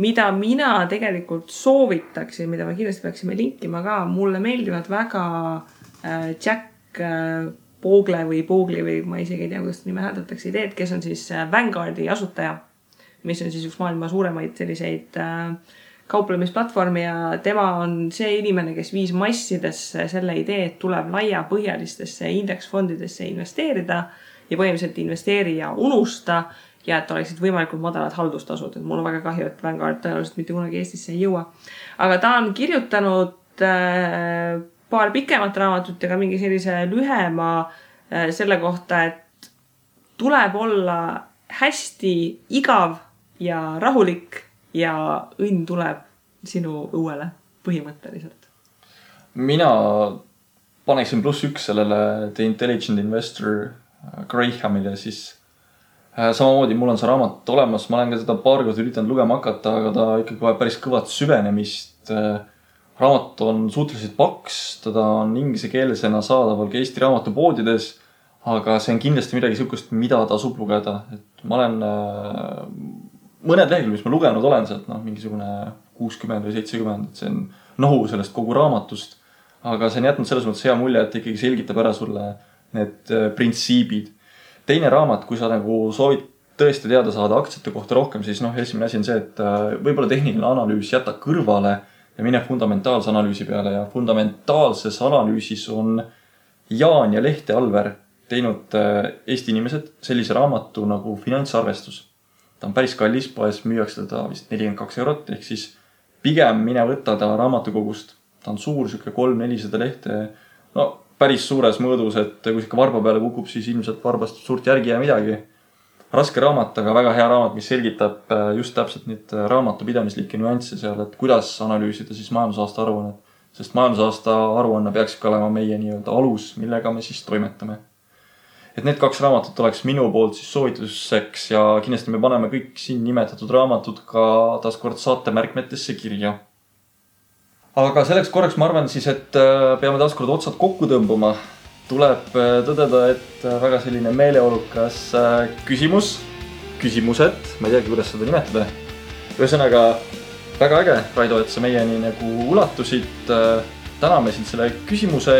Speaker 2: mida mina tegelikult soovitaksin, mida me kindlasti peaksime linkima ka, mulle meeldivad väga Jack Bogle või ma isegi ei tea, kuidas nime hääldatakse ideed, kes on siis Vanguardi asutaja, mis on siis üks maailma suuremaid selliseid kauplemisplatvormi ja tema on see inimene, kes viis massidesse selle idee, et tuleb laiapõhjalistesse indeksfondidesse investeerida ja põhimõtteliselt investeeri ja unusta ja et oleksid võimalikult madalad haldustasud. Et mul on väga kahju, et Vanguard tõenäoliselt mitte kunagi Eestisse ei jõua. Aga ta on kirjutanud paar pikemat raamatut ja ka mingi sellise lühema selle kohta, et tuleb olla hästi igav ja rahulik ja õnn tuleb sinu õuele põhimõtteliselt.
Speaker 3: Mina paneksin +1 sellele The Intelligent Investor Grahamile, siis samamoodi mul on see raamat olemas, ma olen ka seda paar kord üritanud lugema hakata, aga ta ikkagi vaja päris kõvat süvenemist. Raamat on suhteliselt paks, teda on inglise keelesena saadaval ka Eesti raamatupoodides, aga see on kindlasti midagi sihukest, mida tasub lugeda. Et ma olen mõned lehekülg, mis ma lugenud olen sealt, mingisugune 60 või 70, et see on nohu sellest kogu raamatust. Aga see on jätnud selles mõttes hea mulje, et ikkagi selgitab ära sulle need printsiibid. Teine raamat, kui sa nagu soovid tõesti teada saada aktsiate kohta rohkem, siis esimene asi on see, et võib-olla tehniline analüüs jäta kõrvale ja mine fundamentaalse analüüsi peale ja fundamentaalses analüüsis on Jaan ja Lehte Alver teinud Eesti inimesed sellise raamatu nagu finantsarvestus. Ta on päris kallis, poes müüakse teda vist 42 €, ehk siis pigem mine võtta ta raamatukogust. Ta on suur, siuke 300-400 lehte, päris suures mõõdus, et kui ikka varba peale kukub, siis ilmselt varbast suurt järgi ja midagi. Raske raamat, aga väga hea raamat, mis selgitab just täpselt neid raamatupidamislikke nüansse seal, et kuidas analüüsida siis majandusaasta aruannet. Sest majandusaasta aruanne peaks ikka olema meie nii-öelda alus, millega me siis toimetame. Et need 2 raamatut oleks minu poolt siis soovituseks ja kindlasti me paneme kõik siin nimetatud raamatud ka taaskord saate märkmetesse kirja. Aga selleks korraks ma arvan siis, et peame taaskord otsad kokku tõmbama. Tuleb tõdeda, et väga selline meeleolukas küsimused, ma ei teagi, kuidas seda nimetada. Ühesõnaga, väga äge, Raido, et sa meieni nagu ulatusid. Täname sind selle küsimuste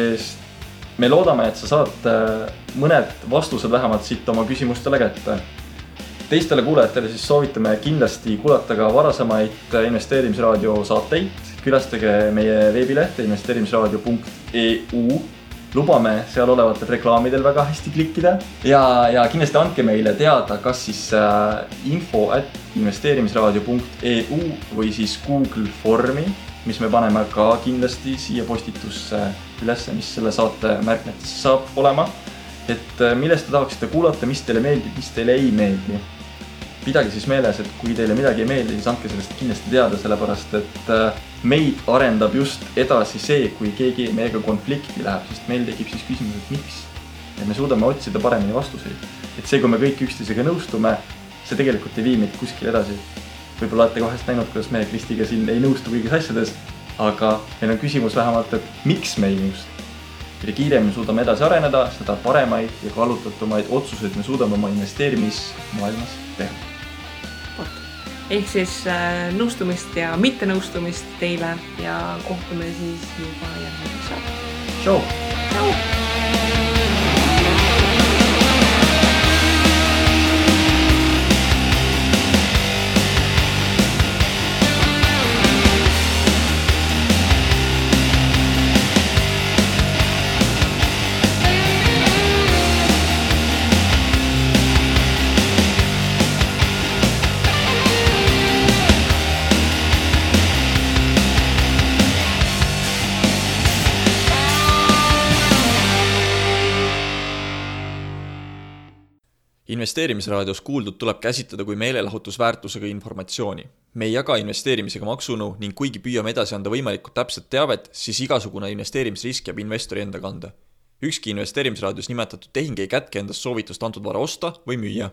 Speaker 3: eest. Me loodame, et sa saad mõned vastused vähemalt siit oma küsimustele kätte. Teistele kuulajatele siis soovitame kindlasti kuulata ka varasemaid investeerimisraadio saateid. Külastage meie veebilehte investeerimisraadio.eu. Lubame seal olevatel reklaamidel väga hästi klikkida. Ja kindlasti andke meile teada, kas siis info@investeerimisraadio.eu või siis Google Formi, mis me paneme ka kindlasti siia postitusse üles, mis selle saate märkmetesse saab olema. Et millest te tahaksite kuulata, mis teile meeldib, mis teile ei meeldi. Pidage siis meeles, et kui teile midagi ei meeldi, siis andke sellest kindlasti teada, sellepärast et meid arendab just edasi see, kui keegi meiega konflikti läheb, sest meil tekib siis küsimus, et miks. Ja me suudame otsida paremini vastuseid. Et see, kui me kõik üksteisega nõustume, see tegelikult ei vii meid kuskil edasi. Võib-olla olete vahest näinud, kuidas me Kristiga siin ei nõustu kõigis asjades, aga meil on küsimus vähemalt, et miks me ei nõustu. Mida kiiremini suudame edasi areneda, seda paremaid ja kaalutatumaid otsuseid me suudame oma investeerimismaailmas teha.
Speaker 2: Ehk siis nõustumist ja mitte nõustumist teile ja kohtume siis juba järgmiseks saab.
Speaker 3: Tšau!
Speaker 2: Tšau!
Speaker 1: Investeerimisraadios kuuldud tuleb käsitleda kui meelelahutusväärtusega informatsiooni. Me ei jaga investeerimisega maksunu ning kuigi püüame edasi anda võimalikult täpset teavet, siis igasugune investeerimisrisk jääb investori enda kanda. Ükski investeerimisraadios nimetatud tehing ei kätke endast soovitust antud vara osta või müüa.